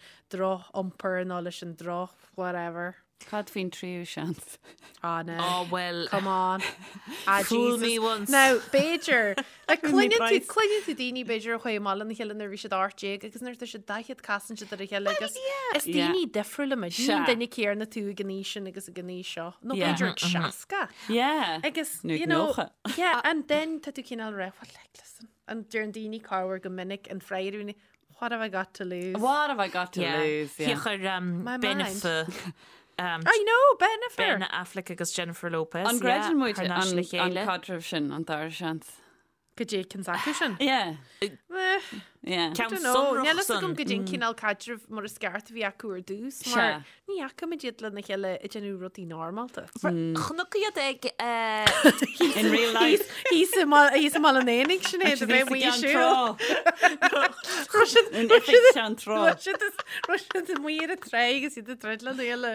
[SPEAKER 4] droch-iompar nó leis an droch whatever.
[SPEAKER 3] Cad faoin tríú seans?
[SPEAKER 4] Ah, no.
[SPEAKER 2] Oh, well.
[SPEAKER 4] Come on. Ah,
[SPEAKER 2] Fool
[SPEAKER 4] Jesus.
[SPEAKER 2] me once.
[SPEAKER 4] Now, b'fhéidir, like,
[SPEAKER 3] Fool me
[SPEAKER 4] cluineann tú,
[SPEAKER 3] twice.
[SPEAKER 4] cluineann tú daoine b'fhéidir a chuaigh amach lena chéile nuair a bhí siad 18 agus nuair atá siad 40 casann siad ar a chéile agus is
[SPEAKER 3] Yeah.
[SPEAKER 4] daoine difriúla muid. Ní an
[SPEAKER 3] Sea.
[SPEAKER 4] duine céanna tú ag an aois sin agus ag an aois seo. Nó
[SPEAKER 3] Yeah.
[SPEAKER 4] b'fhéidir ag 60.
[SPEAKER 3] Yeah.
[SPEAKER 4] Agus,
[SPEAKER 3] Nó ag
[SPEAKER 4] you know,
[SPEAKER 3] 90.
[SPEAKER 4] yeah, and then tá tú cineál rá, well, like, listen, an deireann daoine corruair go minic an freagra, what have I got to lose?
[SPEAKER 3] What have I got to
[SPEAKER 2] Yeah.
[SPEAKER 3] lose? Yeah.
[SPEAKER 2] Thiocfadh
[SPEAKER 4] My mind.
[SPEAKER 2] Bennifer.
[SPEAKER 4] I know, Bennifer!
[SPEAKER 2] Ben Affleck agus Jennifer Lopez.
[SPEAKER 3] An gcreideann muid
[SPEAKER 2] thar n-ais le
[SPEAKER 3] an
[SPEAKER 2] chéile.
[SPEAKER 3] caidreamh sin, an dara seans?
[SPEAKER 4] Goidé cén acu sin?
[SPEAKER 3] Yeah.
[SPEAKER 4] Eh,
[SPEAKER 3] Yeah.
[SPEAKER 2] Ceann
[SPEAKER 4] don't know.
[SPEAKER 2] sonrach
[SPEAKER 4] Níl fhios agam
[SPEAKER 2] san.
[SPEAKER 4] goidé an cineál caidrimh mar is ceart a bhí acu ar dtús, mar
[SPEAKER 3] Sea.
[SPEAKER 4] ní fhaca muid iad lena chéile ag déanamh rudaí normálta.
[SPEAKER 2] Chonac iad ag eh,
[SPEAKER 3] In real life.
[SPEAKER 4] Thíos i mBaile an Éanaigh, Sinéad, a bheith amuigh ag siúl.
[SPEAKER 3] In oifig Cheann Trá.
[SPEAKER 4] Raibh siad amuigh ar an tráigh agus iad ag troid lena chéile.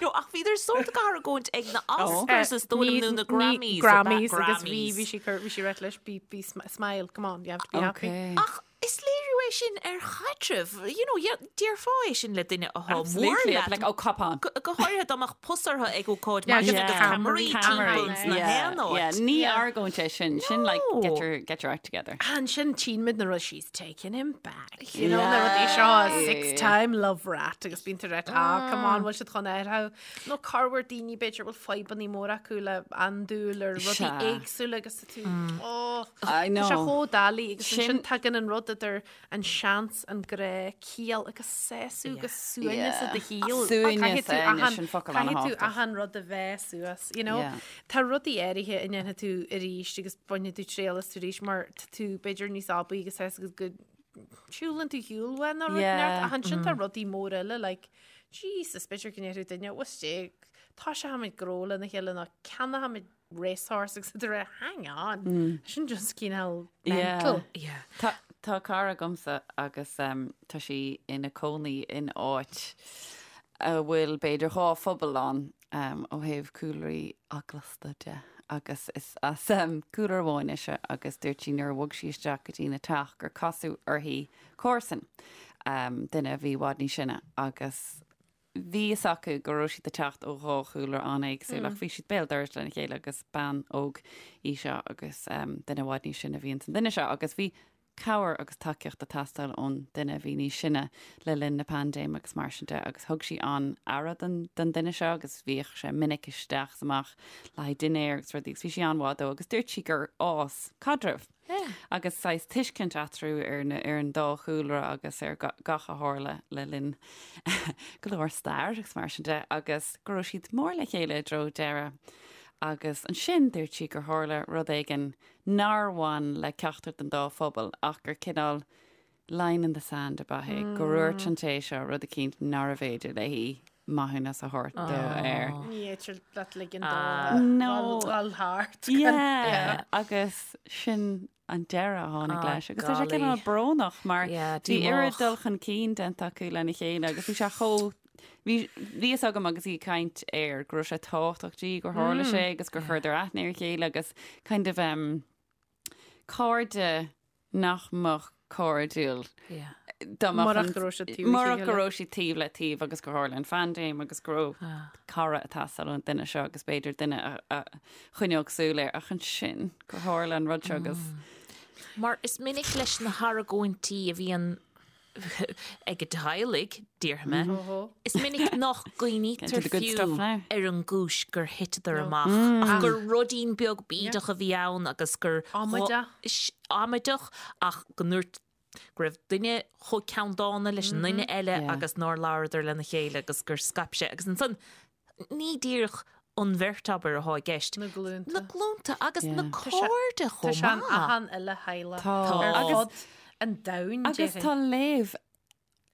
[SPEAKER 2] No, ach bhíodar sórt ag argóint ag na Oscars is dóigh liom nó na Grammys.
[SPEAKER 4] Grammys agus bhí bhí sí cur bhí sí ag ráit leis be be smile come on you have to be happy.
[SPEAKER 3] Okay.
[SPEAKER 2] Ach is léiriú é sin ar chaidreamh, you know, déarfá é sin le duine atá mór
[SPEAKER 3] Absolutely.
[SPEAKER 2] leat.
[SPEAKER 3] Like, oh, cop on.
[SPEAKER 2] Go go háirithe dá mbeadh pus orthu ag ócáid
[SPEAKER 4] Yeah,
[SPEAKER 2] mar sin
[SPEAKER 4] yeah.
[SPEAKER 2] agus ceamaraí
[SPEAKER 4] Ceamaraí.
[SPEAKER 2] timpeall sna
[SPEAKER 3] Yeah,
[SPEAKER 2] haon
[SPEAKER 3] yeah.
[SPEAKER 2] áit.
[SPEAKER 3] Ní
[SPEAKER 4] Yeah.
[SPEAKER 3] argóint é sin. Sin like,
[SPEAKER 2] No.
[SPEAKER 3] get your, get your act together.
[SPEAKER 4] Ansin tchíonn muid na rud she's taking him back. You know, na
[SPEAKER 3] Yeah.
[SPEAKER 4] rudaí seo
[SPEAKER 3] Yeah,
[SPEAKER 4] six
[SPEAKER 3] yeah.
[SPEAKER 4] time love rat agus bíonn tú ag ráit ah come on bhfuil siad chun athrú. Nó corruair daoine b'fhéidir bhfuil fadhbanna móra acu le andúil ar rudaí
[SPEAKER 3] Sea.
[SPEAKER 4] éagsúla agus tá tú oh,
[SPEAKER 3] I
[SPEAKER 4] Tá sé
[SPEAKER 3] know.
[SPEAKER 4] chomh doiligh agus
[SPEAKER 3] Sin-
[SPEAKER 4] ansin tagann an rud idir an seans, an grá, ciall agus sásamh agus suaimhneas i do shaol.
[SPEAKER 3] Suaimhneas,
[SPEAKER 4] Caithfidh tú
[SPEAKER 3] é,
[SPEAKER 4] achan-
[SPEAKER 3] sin focal
[SPEAKER 4] Caithfidh tú
[SPEAKER 3] an-tábhachtach.
[SPEAKER 4] achan rud a mheá suas, you know?
[SPEAKER 3] Yeah.
[SPEAKER 4] Tá rudaí áirithe a ndéanfaidh tú arís agus bainfidh tú triail astu arís mar tá tú b'fhéidir níos aibí agus sásta agus go siúlann tú shiúl uaidh nó rud
[SPEAKER 3] Yeah.
[SPEAKER 4] neart ach ansin tá rudaí móra eile like Jesus b'fhéidir go ndéarfadh duine "What's sé tá sé tháimid gnó lena chéile nó ceannóimid racehorse agus tú ag rá hang on sin just cineál mental.
[SPEAKER 2] Yeah.
[SPEAKER 3] Tá tá cara agamsa agus um, tá sí ina cónaí in áit a bhfuil b'fhéidir dhá phobal ann um, ó thaobh cúlraí eaglasta de agus is as um, cúlra amháin ise agus dúirt sí nuair a bhog sí isteach go dtí na teach gur casadh uirthi comharsan um, duine a bhí i bhfad níos sine agus bhí fhios acu go raibh siad ag teacht ó dhá chúlra an-éagsúil ach bhí siad béal dorais lena chéile agus bean óg í seo agus um, duine i bhfad níos sine a bhí ins an duine seo agus bhí cabhair agus tacaíocht ag teastáil ón duine a bhí níos sine le linn na paindéime agus mar sin de agus thug sí an-aire don don duine seo agus bhíodh sé minic isteach is amach le haghaidh dinnéir agus rudaí agus bhí sí an-mhaith dó agus dúirt sí gur fhás caidreamh agus saghas tuiscint eatarthu ar na ar an dá chúlra agus ar gach a tharla le linn go leor stair agus mar sin de agus go raibh siad mór le chéile i dtreo deireadh agus ansin dúirt sí gur tharla rud éigin nár bhain le ceachtar den dá phobal ach gur cineál line in the sand ab ea é, go ndúirt an té seo rud eicínt nárbh fhéidir léi maithiúnas a thabhairt dó air.
[SPEAKER 4] Ní fhéidir leat ligean dó
[SPEAKER 3] No.
[SPEAKER 4] dul thart.
[SPEAKER 3] Yeah, agus sin an deireadh a tháinig leis. Agus tá sé
[SPEAKER 2] golly.
[SPEAKER 3] cineál brónach mar
[SPEAKER 2] Yeah,
[SPEAKER 3] bhí oiread
[SPEAKER 2] díomách.
[SPEAKER 3] dul chun cinn déanta acu lena chéile agus bhí sé chomh Bhí bhí fhios agam agus í ag caint air go raibh sé tábhachtach di gur tharla sé agus gur chuireadar aithne ar a chéile agus kind of um, cairde nach mbeadh cairdiúil
[SPEAKER 2] Yeah.
[SPEAKER 3] dá mbeadh
[SPEAKER 4] Murach
[SPEAKER 3] an-
[SPEAKER 4] go raibh siad taobh le
[SPEAKER 3] murach go
[SPEAKER 4] chéile.
[SPEAKER 3] raibh siad taobh le taobh agus gur tharla an phaindéim agus go raibh cara ag teastáil ón duine seo agus b'fhéidir duine a, a choinneodh súil air ach ansin gur tharla an rud seo agus
[SPEAKER 2] Mar is minic leis na hargóintí a bhíonn ag teaghlaigh, déarfaidh mé, is minic nach
[SPEAKER 3] Get to
[SPEAKER 2] gcuimhnítear
[SPEAKER 3] the good
[SPEAKER 2] fiú
[SPEAKER 3] stuff now.
[SPEAKER 2] ar an gcúis gur thiteadar amach ach gur ruidín beag bídeach a bhí ann agus gur
[SPEAKER 4] Amaideach.
[SPEAKER 2] amaideach ach go ndúirt go raibh duine chomh ceanndána leis an duine eile
[SPEAKER 3] Yeah.
[SPEAKER 2] agus nár labhradar lena chéile agus gur scaip sé agus ansan ní díreach an bheirt abair atá i gceist.
[SPEAKER 4] Na glúnta.
[SPEAKER 2] Na glúnta agus na
[SPEAKER 3] Yeah.
[SPEAKER 2] cairde
[SPEAKER 4] Tá
[SPEAKER 2] chomh
[SPEAKER 4] sé in
[SPEAKER 2] maith.
[SPEAKER 4] achan uile theaghlach
[SPEAKER 3] Tá.
[SPEAKER 4] ar
[SPEAKER 3] Agus-
[SPEAKER 4] fud an domhain,
[SPEAKER 3] Agus
[SPEAKER 4] déarfainn.
[SPEAKER 3] tá léamh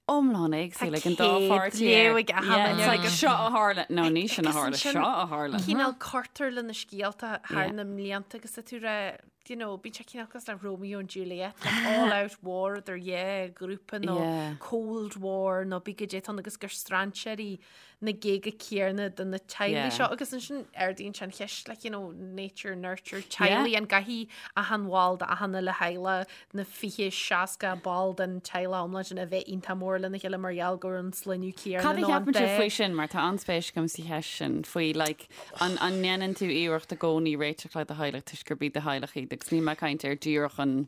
[SPEAKER 3] iomlán éagsúil ag an dá
[SPEAKER 4] céad
[SPEAKER 3] pháirtí
[SPEAKER 4] léamh
[SPEAKER 3] air.
[SPEAKER 4] ag achan
[SPEAKER 3] Yeah,
[SPEAKER 4] duine.
[SPEAKER 3] it's like seo a tharla. No, ní sin a
[SPEAKER 4] Agus
[SPEAKER 3] tharla,
[SPEAKER 4] ansin
[SPEAKER 3] seo a tharla.
[SPEAKER 4] Cineál cuirtear le na scéalta thar
[SPEAKER 3] Yeah.
[SPEAKER 4] na mblianta agus tá tú ag rá, you know, bíonn sé cineál cosúil le Romeo and Juliet, like all out war idir dhá ghrúpa nó
[SPEAKER 3] Yeah.
[SPEAKER 4] Cold War nó bí goidé atá ann agus gur strainséirí na géaga céanna de na teaghlaigh
[SPEAKER 3] Yeah.
[SPEAKER 4] seo agus ansin ardaíonn sé an cheist like, you know, nature, nurture, teaghlaigh an gcaithfidh achan bhall de achan uile theaghlach na 20, 60 ball den teaghlach iomlán sin a bheith iontach mór lena chéile mar gheall gur an sloinneadh céanna
[SPEAKER 3] Cad a
[SPEAKER 4] nó an
[SPEAKER 3] cheapann sibh
[SPEAKER 4] dá
[SPEAKER 3] faoi sin mar tá an-spéis agam sa cheist sin faoi like, an, an ndéanann tú iarracht i gcónaí réiteach le do theaghlach toisc gurb iad do theaghlach iad agus níl mé ag caint ar díreach an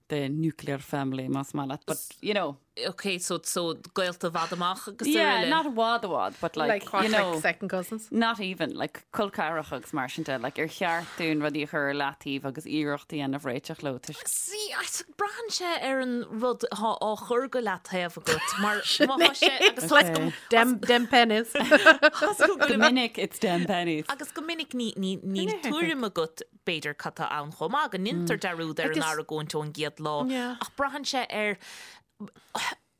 [SPEAKER 3] the nuclear family más maith leat, but you know.
[SPEAKER 2] Ok, so, so gaolta i bhfad amach agus
[SPEAKER 3] Yeah, araile. not i bhfad i bhfad, but like,
[SPEAKER 4] Like, what,
[SPEAKER 3] you know,
[SPEAKER 4] like second cousins?
[SPEAKER 3] not even, like col ceathracha agus mar sin de, like ar cheart dúinn rudaí a chur ar leataobh agus iarracht a dhéanamh réiteach leo toisc
[SPEAKER 2] See, I- braitheann sé ar an rud atá á chur go leataobh agat, mar má tá sé agus
[SPEAKER 4] Like, dem, dem pennies.
[SPEAKER 3] Go minic it's dem pennies.
[SPEAKER 2] Agus go minic ní, ní, níl tuairim agat b'fhéidir cad tá ann chomh maith, go ndéantar dearúd ar an argóint ón gcéad lá, ach braitheann sé ar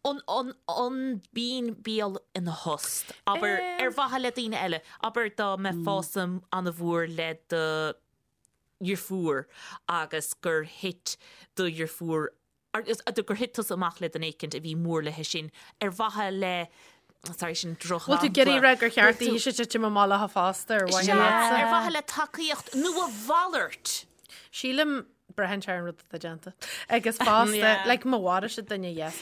[SPEAKER 2] an, an, an mbíonn béal ina thost, abair, ar mhaithe le daoine eile, abair dá mbeifeása an-mhór le do dheirfiúr agus gur thit do dheirfiúr gur thit tusa amach le duine éicint a bhí mór léi sin ar mhaithe le, sorry, sin
[SPEAKER 4] drochshampla. Bhfuil tú ag iarraidh a rá gur cheart daoithe titim amach léi fosta ar mhaithe
[SPEAKER 2] leatsa? Ar mhaithe le tacaíocht nó a mhalairt.
[SPEAKER 4] Sílim, braitheann sé ar an rud atá déanta. Agus fosta, like má mharaigh siad duine, yes.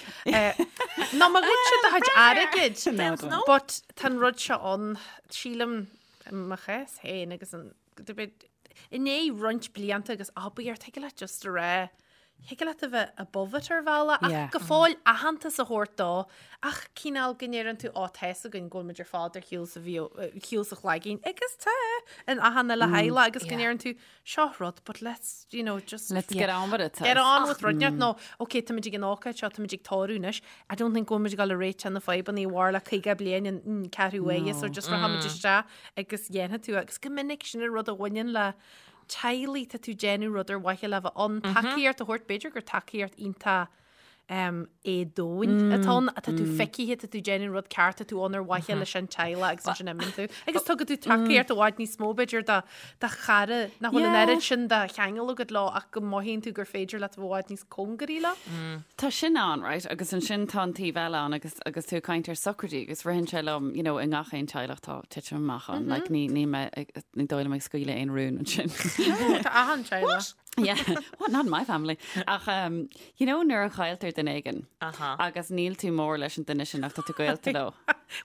[SPEAKER 4] Nó má ghoid siad do chuid airgid. But tá an rud seo ann, sílim, i mo chás féin agus an, i ndiaidh roinnt blianta agus abair, thig leat just a rá, thig leat a bheith above it ar bhealach ach go fóill aitheantas a thabhairt dó ach cineál go ndeireann tú á tá 'fhios againn go bhfuil muid ar fad ar shiúl sa shiúl sa chlaigín agus tá in achan uile theaghlach agus go ndeireann tú seo rud but let's you know just
[SPEAKER 3] Let's get on with it.
[SPEAKER 4] Get on with rud nó ok táimid ag an ócáid seo táimid ag tórramh anois I don't think go bhfuil muid ag dul a réiteach na fadhbanna a mhair le 50 bliain an ceathrú uaire so just rachaimid isteach agus dhéanfaidh tú agus go minic sin an rud a bhaineann le teaghlaigh, tá tú ag déanamh rud ar mhaithe le bheith ann, tacaíocht a thabhairt, b'fhéidir gur tacaíocht iontach éadomhain atá ann, tá tú feicthe, tá tú ag déanamh rud ceart, tá tú ann ar mhaithe leis an teaghlach agus ansin imíonn tú. Agus tugann tú tacaíocht i bhfad níos mó b'fhéidir do do chara nach bhfuil an oiread sin de cheangal agat leo ach go mothaíonn tú gur féidir leat a bheith i bhfad níos cóngaraí leo.
[SPEAKER 3] Tá sin ann, right, agus ansin tá an taobh eile ann agus agus tú ag caint ar socraidí agus ritheann sé liom, you know, i ngach aon teaghlach tá titim amach ann, like ní ní mé ní dóigh liom ag scaoileadh aon rún ansin.
[SPEAKER 4] Tá achan teaghlach.
[SPEAKER 3] Yeah, what, not in my family. Ach, um, you know, nuair a chailltear duine éigin agus níl tú mór leis an duine sin ach tá tú gaolta leo.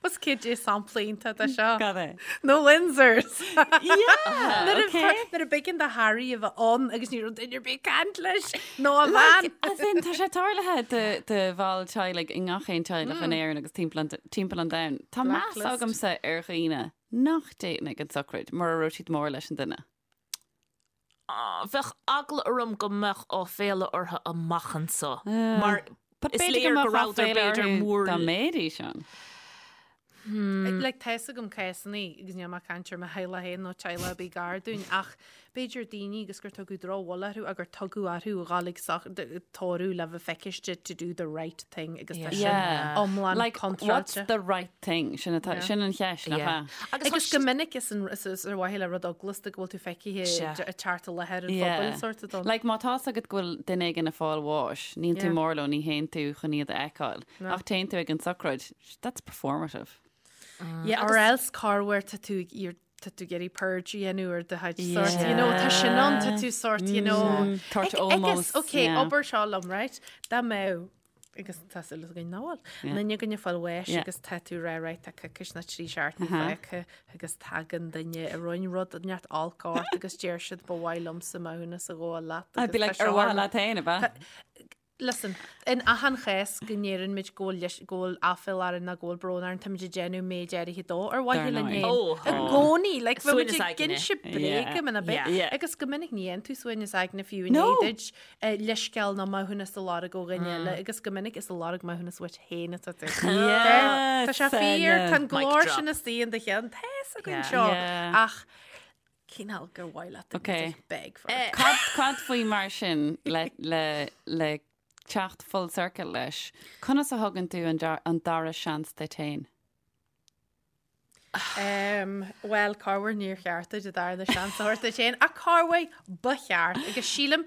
[SPEAKER 4] Was cad é sampla iontach de seo?
[SPEAKER 3] Cad é?
[SPEAKER 4] Na Windsors.
[SPEAKER 3] Yeah,
[SPEAKER 4] Nuair a
[SPEAKER 3] okay.
[SPEAKER 4] nuair a b'éigean do Harry a bheith ann agus ní raibh duine ar bith ag caint leis nó a bhean.
[SPEAKER 3] As in, tá sé tarlaithe do, do bhall teaghlaigh i ngach aon teaghlach in Éirinn agus timpeall an, timpeall an domhain. Tá meas
[SPEAKER 4] Blacklist.
[SPEAKER 3] agamsa ar dhaoine nach dtéann ag an tsochraid mura raibh siad mór leis an duine.
[SPEAKER 2] Bheadh eagla orm go mbeadh áiféala orthu amach anso mar
[SPEAKER 3] But
[SPEAKER 2] is
[SPEAKER 3] b'fhéidir
[SPEAKER 2] léir
[SPEAKER 3] go
[SPEAKER 2] go
[SPEAKER 3] mbeadh
[SPEAKER 2] rabhadar
[SPEAKER 3] áiféala
[SPEAKER 2] b'fhéidir
[SPEAKER 3] orthu
[SPEAKER 2] mór
[SPEAKER 3] dá mbeidís ann.
[SPEAKER 4] Like, tá 'fhios agam cásanna, agus níl mé ag caint ar mo theaghlach féin nó teaghlach ar bith gar dúinn, ach b'fhéidir daoine agus gur tugadh drochbhuille orthu ach gur tugadh orthu a dhul ag tórramh le bheith feiciste to do the right thing agus tá sin iomlán
[SPEAKER 3] Like, what's
[SPEAKER 4] contráilte.
[SPEAKER 3] the right thing? Sin atá, sin an cheist, nach ea?
[SPEAKER 4] Agus go minic is an- is is ar mhaithe le rud eaglasta go bhfuil tú feicthe ag teacht i láthair an phobail sort of done.
[SPEAKER 3] Like, má tá's agat go bhfuil duine éigin ag fáil bháis, níl tú
[SPEAKER 4] Yeah.
[SPEAKER 3] mór leo, ní théann tú chun iad a fheiceáil. Ach téann tú ag an tsochraid, that's performative.
[SPEAKER 4] Yeah, or else corruair tá tú ag iarr- tá tú ag iarraidh purge a dhéanamh ar do chuid sort, you know, tá sin ann, tá tú sort, you know.
[SPEAKER 3] Tart
[SPEAKER 4] Ag-
[SPEAKER 3] almost,
[SPEAKER 4] Agus, okay,
[SPEAKER 3] yeah.
[SPEAKER 4] obair seo liom, right? Dá mbeadh agus tá súil againn nach bhfuil. Duine againn ag fáil bháis agus tá tú rá right tá coicís nó 3 seachtaine fágtha agus tagann duine a rinne rud neart olc ort agus deir siad ba mhaith liomsa maithiúnas a ghabháil leat
[SPEAKER 3] I'd
[SPEAKER 4] agus
[SPEAKER 3] be
[SPEAKER 4] tá
[SPEAKER 3] like, ar
[SPEAKER 4] seo
[SPEAKER 3] mhaithe
[SPEAKER 4] orm.
[SPEAKER 3] leat féin, ab ea?
[SPEAKER 4] Listen, in achan chás go ndeireann muid go bhfuil go bhfuil aiféala orainn nó go bhfuil brón orainn, táimid ag déanamh méid áirithe dó ar mhaithe
[SPEAKER 3] Dar
[SPEAKER 4] linn
[SPEAKER 3] ndóigh.
[SPEAKER 4] féin.
[SPEAKER 2] Ó,
[SPEAKER 4] I gcónaí, like, bheadh muid
[SPEAKER 2] Suaimhneas
[SPEAKER 4] ag
[SPEAKER 2] aigne.
[SPEAKER 4] inse bréige muna bith.
[SPEAKER 3] Yeah.
[SPEAKER 4] Agus go minic ní dhéanann tú suaimhneas aigne fiú i
[SPEAKER 3] No.
[SPEAKER 4] ndiaidh duit leithscéal nó maithiúnas a lorg ó dhuine eile agus go minic is ag lorg maithiúnas uait féin atá tú.
[SPEAKER 3] Yes,
[SPEAKER 4] Tá sé fíor, tá an
[SPEAKER 2] Mic
[SPEAKER 4] glór
[SPEAKER 2] drop.
[SPEAKER 4] sin istigh in do cheann, tá 'fhios againn
[SPEAKER 2] Yeah.
[SPEAKER 4] seo
[SPEAKER 3] Yeah.
[SPEAKER 4] ach cineál gur mhaith leat
[SPEAKER 3] Okay.
[SPEAKER 4] beg for it.
[SPEAKER 3] Cad, cad faoi mar sin le, le, le teacht full circle leis? Conas a thugann tú an, dar, an dara seans duit féin?
[SPEAKER 4] Um, well, corruair níor cheart duit an darna seans a thabhairt duit féin, ach corruair ba cheart agus sílim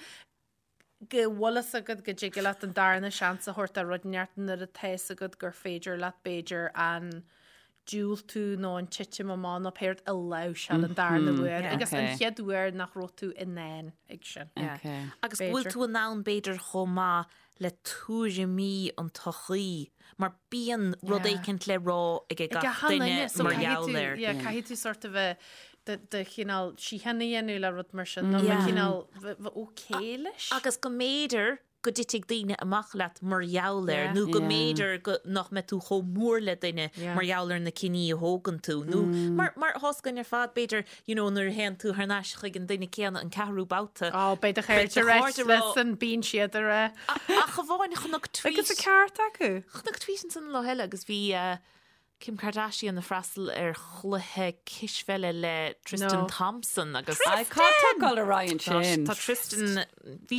[SPEAKER 4] go bhfuil fhios agat go dtig leat an darna seans a thabhairt do rud inteacht nuair atá fhios agat gur féidir leat b'fhéidir an diúltú nó an titim amach nó pé rud a láimhseáil an darna huair agus an
[SPEAKER 3] Okay.
[SPEAKER 4] chéad uair nach raibh tú in ann ag sin.
[SPEAKER 3] Okay.
[SPEAKER 2] Agus go bhfuil
[SPEAKER 4] B'fhéidir.
[SPEAKER 2] tú in ann b'fhéidir chomh maith le tuairimí an tsochaí, mar bíonn rud
[SPEAKER 4] Yeah.
[SPEAKER 2] éicint le rá ag
[SPEAKER 4] Ag
[SPEAKER 2] gach
[SPEAKER 4] achan
[SPEAKER 2] duine
[SPEAKER 4] duine, so
[SPEAKER 2] mar
[SPEAKER 4] caithfidh
[SPEAKER 2] gheall
[SPEAKER 4] tú-
[SPEAKER 2] air.
[SPEAKER 4] yeah, caithfidh tú sort of a do do chineál síocháin a dhéanamh le rud mar sin, nó
[SPEAKER 2] Yeah.
[SPEAKER 4] cineál bheith okay leis.
[SPEAKER 2] Agus go mb'fhéidir. go dtitfidh daoine amach leat mar gheall air nó go mb'fhéidir go nach mbeidh tú chomh mór le duine mar gheall ar na cinní a thógann tú nó mar mar tá a fhios againn ar fad b'fhéidir you know nuair a théann tú thar n-ais chuig an duine céanna an ceathrú babhta
[SPEAKER 4] Ó beidh do chairde ag rá listen bíonn siad ag rá.
[SPEAKER 2] Ach amháin chonac
[SPEAKER 4] tweet. Agus an ceart acu.
[SPEAKER 2] Chonac tweet ansan an lá eile agus bhí eh, Kim Kardashian ag freastal ar chluiche cispheile le Tristan Thompson agus.
[SPEAKER 3] Cad tá ag dul ar aghaidh ansin?
[SPEAKER 2] Tá Tristan, bhí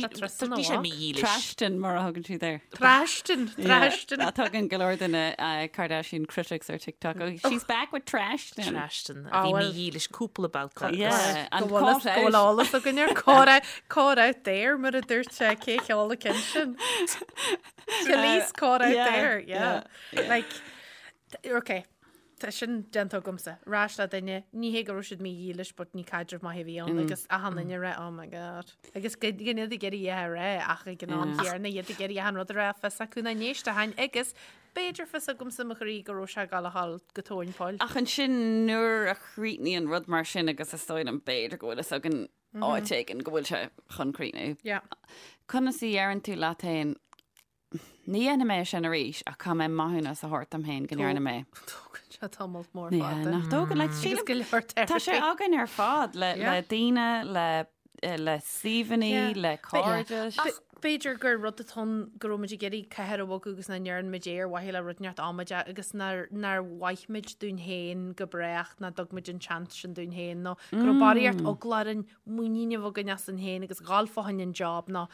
[SPEAKER 2] sé mídhílis.
[SPEAKER 3] Trashton mar a thugann siad air.
[SPEAKER 4] Trashton,
[SPEAKER 3] Trashton. A tugann go leor de na Kardashian critics ar TikTok. Oh, she's back with Trashton.
[SPEAKER 2] Trashton. A bhí mídhílis cúpla babhta.
[SPEAKER 3] Yeah,
[SPEAKER 4] and caught out. Go bhfuil eolas againn ar caught out, caught out there mar a dúirt sé cé cheol a cinn sin. Police caught out there, yeah. Like, Ok, tá sin déanta agamsa. Ar ais le duine, ní hé go raibh siad mídhílis but ní caidreamh maith a bhí ann agus achan duine ag rá oh my god. Agus gan iad ag iarraidh é a rá ach ag an am chéanna iad ag iarraidh achan rud a rá fios acu nach n-éistfeadh agus b'fhéidir fios agamsa mo chroí go raibh sé ag gabháil a dhul go tóin poill.
[SPEAKER 3] Ach ansin nuair a chríochnaíonn rud mar sin agus is dóigh liom b'fhéidir go bhfuil fhios againn áit éigin go bhfuil sé chun críochnú. Conas a dheireann tú leat féin Ní dhéanfaidh mé sin arís ach caithfidh mé maithiúnas a thabhairt dom féin go ndearna mé.
[SPEAKER 4] Tógann sé tamall mór fada.
[SPEAKER 3] Nach dtógann like
[SPEAKER 4] Agus go leor
[SPEAKER 3] Tá sé
[SPEAKER 4] therapy.
[SPEAKER 3] againn ar fad le le daoine, le le suíomhanna, le cairde.
[SPEAKER 4] Ach b'fhéidir gur rud atá ann go raibh muid ag iarraidh cathair a bhogadh agus nach ndearna muid é ar mhaithe le rud inteacht amaideach agus nár nár mhaith muid dúinn féin go brách nach dtug muid an seans sin dúinn féin nó go raibh barraíocht eagla orainn muinín a bheith againn asainn féin agus dhul fá choinne an job nó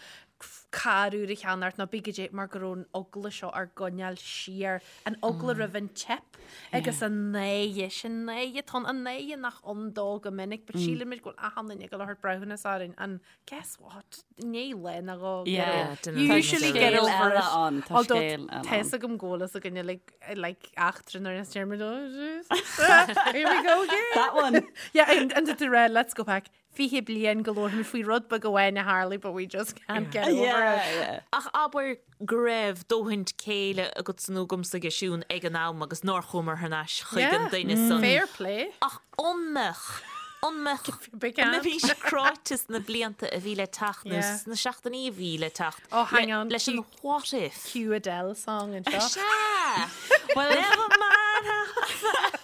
[SPEAKER 4] carr úr a cheannacht nó bí goidé mar go raibh an eagla seo ár gcoinneáil siar, an eagla roimh an teip agus an náire, sin náire atá ann, an náire nach ann dó go minic but síleann muid go bhfuil achan duine ag dul a thabhairt breithiúnas orainn and guess what, i ndiaidh lá nó dhó
[SPEAKER 3] Yeah,
[SPEAKER 4] you usually get over it.
[SPEAKER 3] Ann, tá
[SPEAKER 4] Although
[SPEAKER 3] scéal eile
[SPEAKER 4] tá fhios
[SPEAKER 3] ann.
[SPEAKER 4] agam go bhfuil fhios againne like, like eachtra nuair a deir muid oh Jesus, here we go again.
[SPEAKER 3] That one.
[SPEAKER 4] Yeah, and, and to rá, let's go back. 20 bliain go labharfaimid faoi rud beag amháin a tharlaigh but we just can't get over
[SPEAKER 3] Yeah,
[SPEAKER 4] it.
[SPEAKER 3] yeah.
[SPEAKER 2] Ach abair go raibh dóthain céille agatsa nó agamsa aige Siún ag an am agus nár chuamar thar n-ais chuig an
[SPEAKER 4] Yeah,
[SPEAKER 2] duine san.
[SPEAKER 4] fair play.
[SPEAKER 2] Ach an mbeadh, an mbeadh,
[SPEAKER 4] Big
[SPEAKER 2] an
[SPEAKER 4] hand.
[SPEAKER 2] mbeimís cráite sna blianta a bhí le teacht nó
[SPEAKER 4] Yeah.
[SPEAKER 2] sna seachtainí a bhí le teacht
[SPEAKER 4] Oh, hang
[SPEAKER 2] le,
[SPEAKER 4] on.
[SPEAKER 2] leis an what if?
[SPEAKER 4] Cue Adele song anseo.
[SPEAKER 2] Sea! Well, never mind how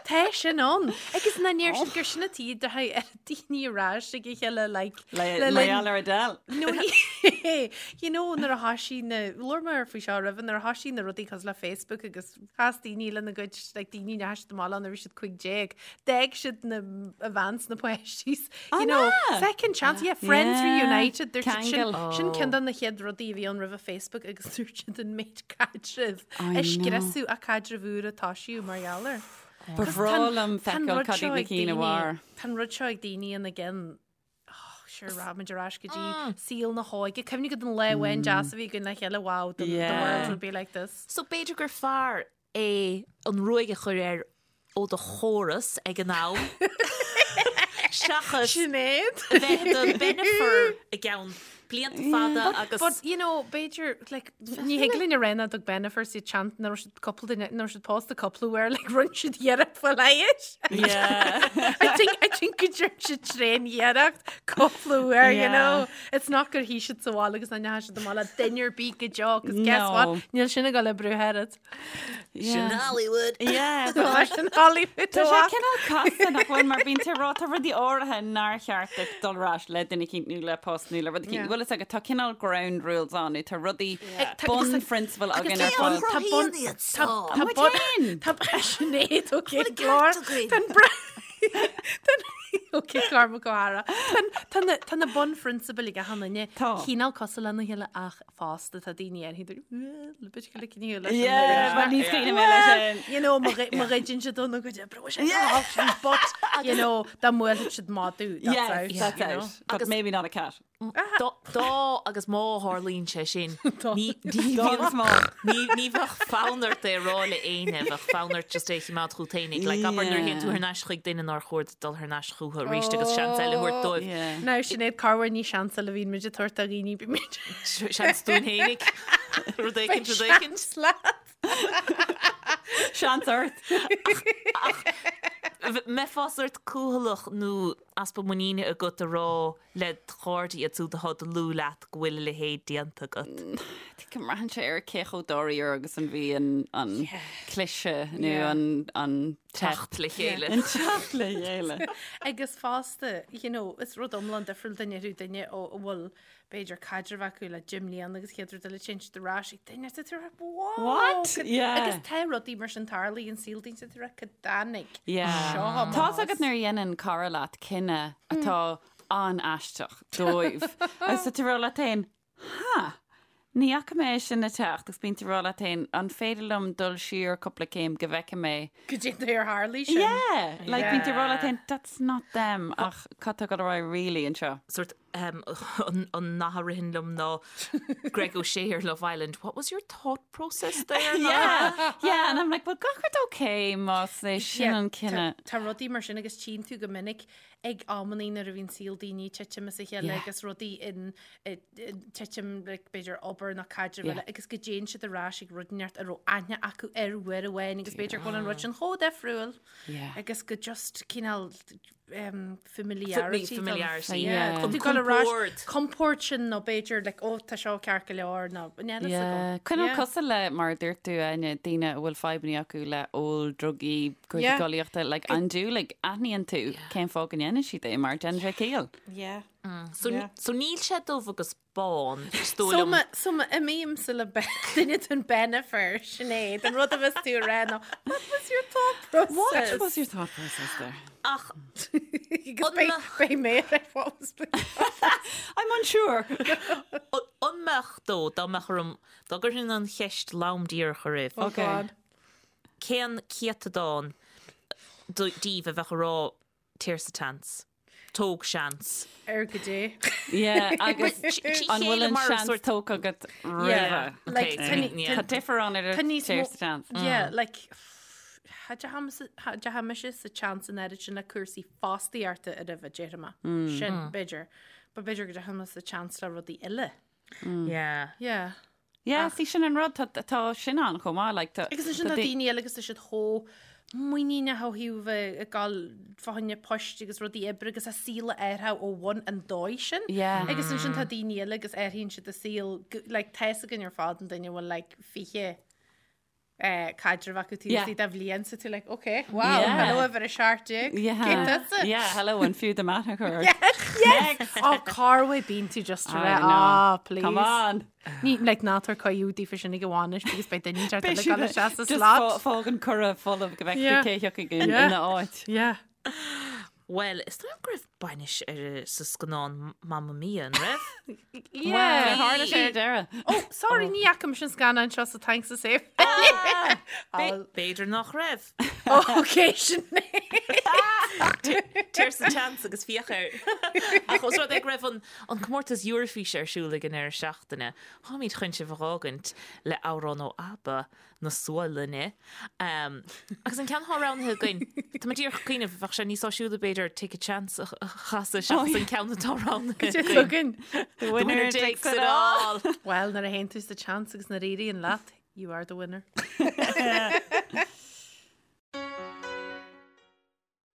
[SPEAKER 4] Tá sin ann. Agus na níor siad gur sin atá de ar daoine ar ais ag a chéile like
[SPEAKER 3] Le
[SPEAKER 4] le linn-
[SPEAKER 3] mar gheall ar Adele.
[SPEAKER 4] No, ní- you know nuair a thoisigh na labhair mé faoi seo roimhe nuair a thoisigh na rudaí cosúil le Facebook agus chas daoine lena gcuid like daoine a ndeachaigh siad amach leo nuair a bhí siad 15 d'fhág siad na a bhean 's na páistí you know
[SPEAKER 3] ná?
[SPEAKER 4] second chance yeah friends
[SPEAKER 3] Yeah,
[SPEAKER 4] reunited dúirt siad sin
[SPEAKER 3] ceangal.
[SPEAKER 4] sin ceann de na chéad rudaí a bhí ann roimhe Facebook agus dúirt siad an méid caidrimh
[SPEAKER 3] I
[SPEAKER 4] a
[SPEAKER 3] know.
[SPEAKER 4] scriosadh a caidreamh úr a toisíodh mar gheall air.
[SPEAKER 3] Ba bhreá liom feiceáil cad iad na cinn a mhair.
[SPEAKER 4] Tá an rud seo ag daoine ina gcinn. Oh, sure, rachaimid ar ais go dtí saol na hóige. Cuimhnigh go don lá amháin deas a bhí againn le chéile, wow, the, the
[SPEAKER 3] Yeah.
[SPEAKER 4] world would be like this.
[SPEAKER 2] So b'fhéidir gur fearr é an ruaig a chur air ó do chóras ag an am seachas
[SPEAKER 4] Sinéad.
[SPEAKER 2] a bheith i do Bennifer i gceann blianta fada agus
[SPEAKER 4] But, you know, b'fhéidir, like, ní thig linn a rá nach dtug Bennifer siad seans nach raibh siad cúpla duine, nach raibh siad pósta cúpla uair, like, rinne siad iarracht fá leigheas.
[SPEAKER 3] Yeah.
[SPEAKER 4] I think, I think go dtearn siad tréan-iarracht cúpla uair, you
[SPEAKER 3] Yeah.
[SPEAKER 4] know. It's not gur shuigh siad sa bhaile agus nach ndeachaigh siad amach le duine ar bith go deo, 'cause guess
[SPEAKER 3] No.
[SPEAKER 4] what? Níl sin ag dul a oibriú oiread.
[SPEAKER 2] Sin Hollywood.
[SPEAKER 3] Yeah,
[SPEAKER 4] Tá sin Hollywood
[SPEAKER 3] Tá sé
[SPEAKER 4] amach.
[SPEAKER 3] cineál casta nach bhfuil mar bíonn tú ag rá tá rudaí áirithe nár cheart duit dul ar ais le duine eicínt nó le post nó le rud eicínt.
[SPEAKER 4] Yeah.
[SPEAKER 3] Bhfuil fhios agat tá cineál ground rules ann nó tá rudaí
[SPEAKER 4] Tá-
[SPEAKER 3] bunphrionsabail againn ar
[SPEAKER 4] Tá
[SPEAKER 3] fad.
[SPEAKER 4] bun- tá bun-
[SPEAKER 2] iad
[SPEAKER 4] tá-
[SPEAKER 2] seo.
[SPEAKER 4] tá
[SPEAKER 3] Muid
[SPEAKER 4] bun-
[SPEAKER 3] féin.
[SPEAKER 4] Tá Sinéad Ó
[SPEAKER 2] ceart
[SPEAKER 4] Clár.
[SPEAKER 2] againn.
[SPEAKER 4] Tá an bra- Tá an- Ok, Cormac Ó hEára. Tá an- Tá na- tá na bunphrionsabail ag achan duine.
[SPEAKER 3] Tá.
[SPEAKER 4] Cineál cosúil lena chéile ach fosta tá daoine ar thíos
[SPEAKER 3] Yeah, but níos cuimhne mé leis sin.
[SPEAKER 4] You know, má ghoideann siad dó nó go dtí sé sin, but you know, dá mbuailfeadh siad madadh, that's
[SPEAKER 3] Yes,
[SPEAKER 4] out,
[SPEAKER 3] that's
[SPEAKER 4] you know.
[SPEAKER 3] out. But maybe not a cat.
[SPEAKER 2] Dá dá agus má tharlaíonn sé sin, ní ní
[SPEAKER 3] Dá agus
[SPEAKER 2] bheadh
[SPEAKER 3] má.
[SPEAKER 2] ní ní bheadh fonn ort é a rá le éinne, bheadh fonn ort just é a choimeád chugat fhéinig. Like abair nuair a théann tú thar n-ais chuig duine nár chóir duit dul thar n-ais chucu arís agus seans eile a thabhairt dóibh.
[SPEAKER 3] Yeah.
[SPEAKER 4] Now Sinéad corruair ní seans eile a bhíonn muid ag tabhairt do dhaoine bíonn muid
[SPEAKER 2] Seans dúinn fhéinig. Rud éicint, rud éicint.
[SPEAKER 4] Seans leat.
[SPEAKER 3] Seans ort.
[SPEAKER 2] Mbeifeá sórt cúthalach nó easpa muiníne agat a rá le do chairde iad siúd atá dlúth leat go bhfuil a leithéid déanta agat?
[SPEAKER 3] Go mbraitheann sé ar cé chomh dáiríre agus an bhí an an cliseadh nó an an
[SPEAKER 2] teacht le chéile.
[SPEAKER 3] An teacht le chéile.
[SPEAKER 4] Agus fosta, you know, is rud iomlán difriúil dá ndéarfadh duine ó a bhfuil b'fhéidir caidreamh acu le deich mbliana agus chéad rud eile téann siad ar ais ag duine is tú
[SPEAKER 3] wow! What?
[SPEAKER 4] Yeah. Agus tá rudaí mar sin tarlaíonn i saol daoine tú cad tháinig
[SPEAKER 3] Yeah. seo amach. Tá's agat nuair a dhéanann cara leat cinneadh atá an-aisteach dóibh. Agus tá tú ag rá leat féin, ha! Ní fhaca mé é sin ag teacht agus bíonn tú ag rá leat féin, an féidir liom dul siar cúpla céim go bhfeicfidh mé.
[SPEAKER 4] Cad é an dóigh ar tharlaigh sin.
[SPEAKER 3] Yeah! Like bíonn tú ag rá leat féin, that's not them ach cad tá ag dul ar aghaidh really anseo?
[SPEAKER 2] Sort an nath a ritheann liom ná Greg O'Shea ar Love Island, what was your thought process there?
[SPEAKER 3] Yeah, yeah, and I'm like, well gach rud okay más é sin an cinneadh.
[SPEAKER 4] Tá rudaí mar sin agus tchíonn tú go minic ag amannaí nuair a bhíonn saol daoine ag titim as a chéile agus rudaí in titim like, b'fhéidir obair nó caidreamh eile agus go dtéann siad ar ais ag rud inteacht a raibh aithne acu air uair amháin agus b'fhéidir go bhfuil an rud sin chomh difriúil agus go just cineál um, familiarity.
[SPEAKER 2] Familiarity.
[SPEAKER 4] Yeah. An compord. Compord sin nó b'fhéidir like, oh, tá seo ceart go leor nó níl a fhios
[SPEAKER 3] agam. Cineál cosúil le mar a dúirt tú Áine, daoine a bhfuil fadhbanna acu le ól, drugaí, cúrsaí collaíochta, like andúiligh, aithníonn tú cén fáth go ndéanann siad é mar déanann sé ciall.
[SPEAKER 4] Yeah.
[SPEAKER 2] So, so níl sé dubh agus bán,
[SPEAKER 4] is dóigh liom. So má imímse le duine den Bennifer, Sinéad, an rud a bheas tú a rá ná, what was your thought process?
[SPEAKER 3] What was your thought process there?
[SPEAKER 2] Ach,
[SPEAKER 4] beidh mé ar what was
[SPEAKER 3] I'm unsure.
[SPEAKER 2] An mbeadh dó, dá mbeadh orm, dá gcuirfinn an cheist lom díreach oraibh.
[SPEAKER 4] Oh God.
[SPEAKER 2] Cén céatadán díbh a bheadh ag rá Téir sa tseans. Tóg seans.
[SPEAKER 4] Ar go dté.
[SPEAKER 3] Yeah, agus an bhfuil an seans tógtha agat roimhe? Tá difear ann idir téir sa tseans.
[SPEAKER 4] Yeah, like, cha dteachaidh mise sa tseans an oiread sin le cúrsaí fostaíochta roimhe, déarfaidh mé. Sin, b'fhéidir. But b'fhéidir go dteachaidh mé sa tseans le rudaí eile.
[SPEAKER 2] Yeah.
[SPEAKER 4] Yeah.
[SPEAKER 3] Yeah, see sin an rud, tá tá sin ann chomh maith, like tá.
[SPEAKER 4] Agus ansin tá daoine eile agus tá siad chomh muiníneach ó thaobh bheith ag dul fá choinne poist agus rudaí oibre agus a saol a athrú ó bhun an dóigh sin.
[SPEAKER 3] Yeah.
[SPEAKER 4] Agus ansin tá daoine eile agus athraíonn siad a saol, like tá fhios againn ar fad an duine a bhfuil like 20 caidreamh acu taobh istigh de bhliain so tú like ok wow yeah. hello uimhir 17
[SPEAKER 3] yeah. Cé tusa? Yeah hello an fiú do mheath a chur
[SPEAKER 4] yes yes oh Carway bíonn tú just a rá ah please
[SPEAKER 3] come on
[SPEAKER 4] Ní like ná tabhair cuireadh daofa sin ag an bhainis because beidh duine inteacht eile ag dul isteach sa slot.
[SPEAKER 3] Fág an cuireadh folamh go bhfeicfidh tú cé thiocfaidh ina áit.
[SPEAKER 4] Yeah.
[SPEAKER 2] Bhuel, is dóigh liom go raibh bainis ar sa scannán Mamma Mia, an raibh?
[SPEAKER 4] Yeah.
[SPEAKER 3] Tharla sé ar deireadh.
[SPEAKER 4] Oh, sorry, ní fhaca mise an scannán seo so thanks a save.
[SPEAKER 2] B'fhéidir nach raibh.
[SPEAKER 4] Oh, okay, sin
[SPEAKER 2] Téir sa tseans agus féach air. Ach os rud é go raibh an an comórtas Eurofíse ar siúl ag an deireadh seachtaine, táimid chun sibh a dh'fhágaint le amhrán ó ABBA na Sualainne. Agus an ceann atá roghnaithe againn, tá mé díreach ag cuimhneamh, bheadh sé níos áisiúla b'fhéidir Take a Chance a chasadh seachas an ceann atá roghnaithe
[SPEAKER 4] againn.
[SPEAKER 2] The winner takes it all!
[SPEAKER 4] Bhuel, nuair a théann tú sa tseans agus nuair a éiríonn leat, you are the winner.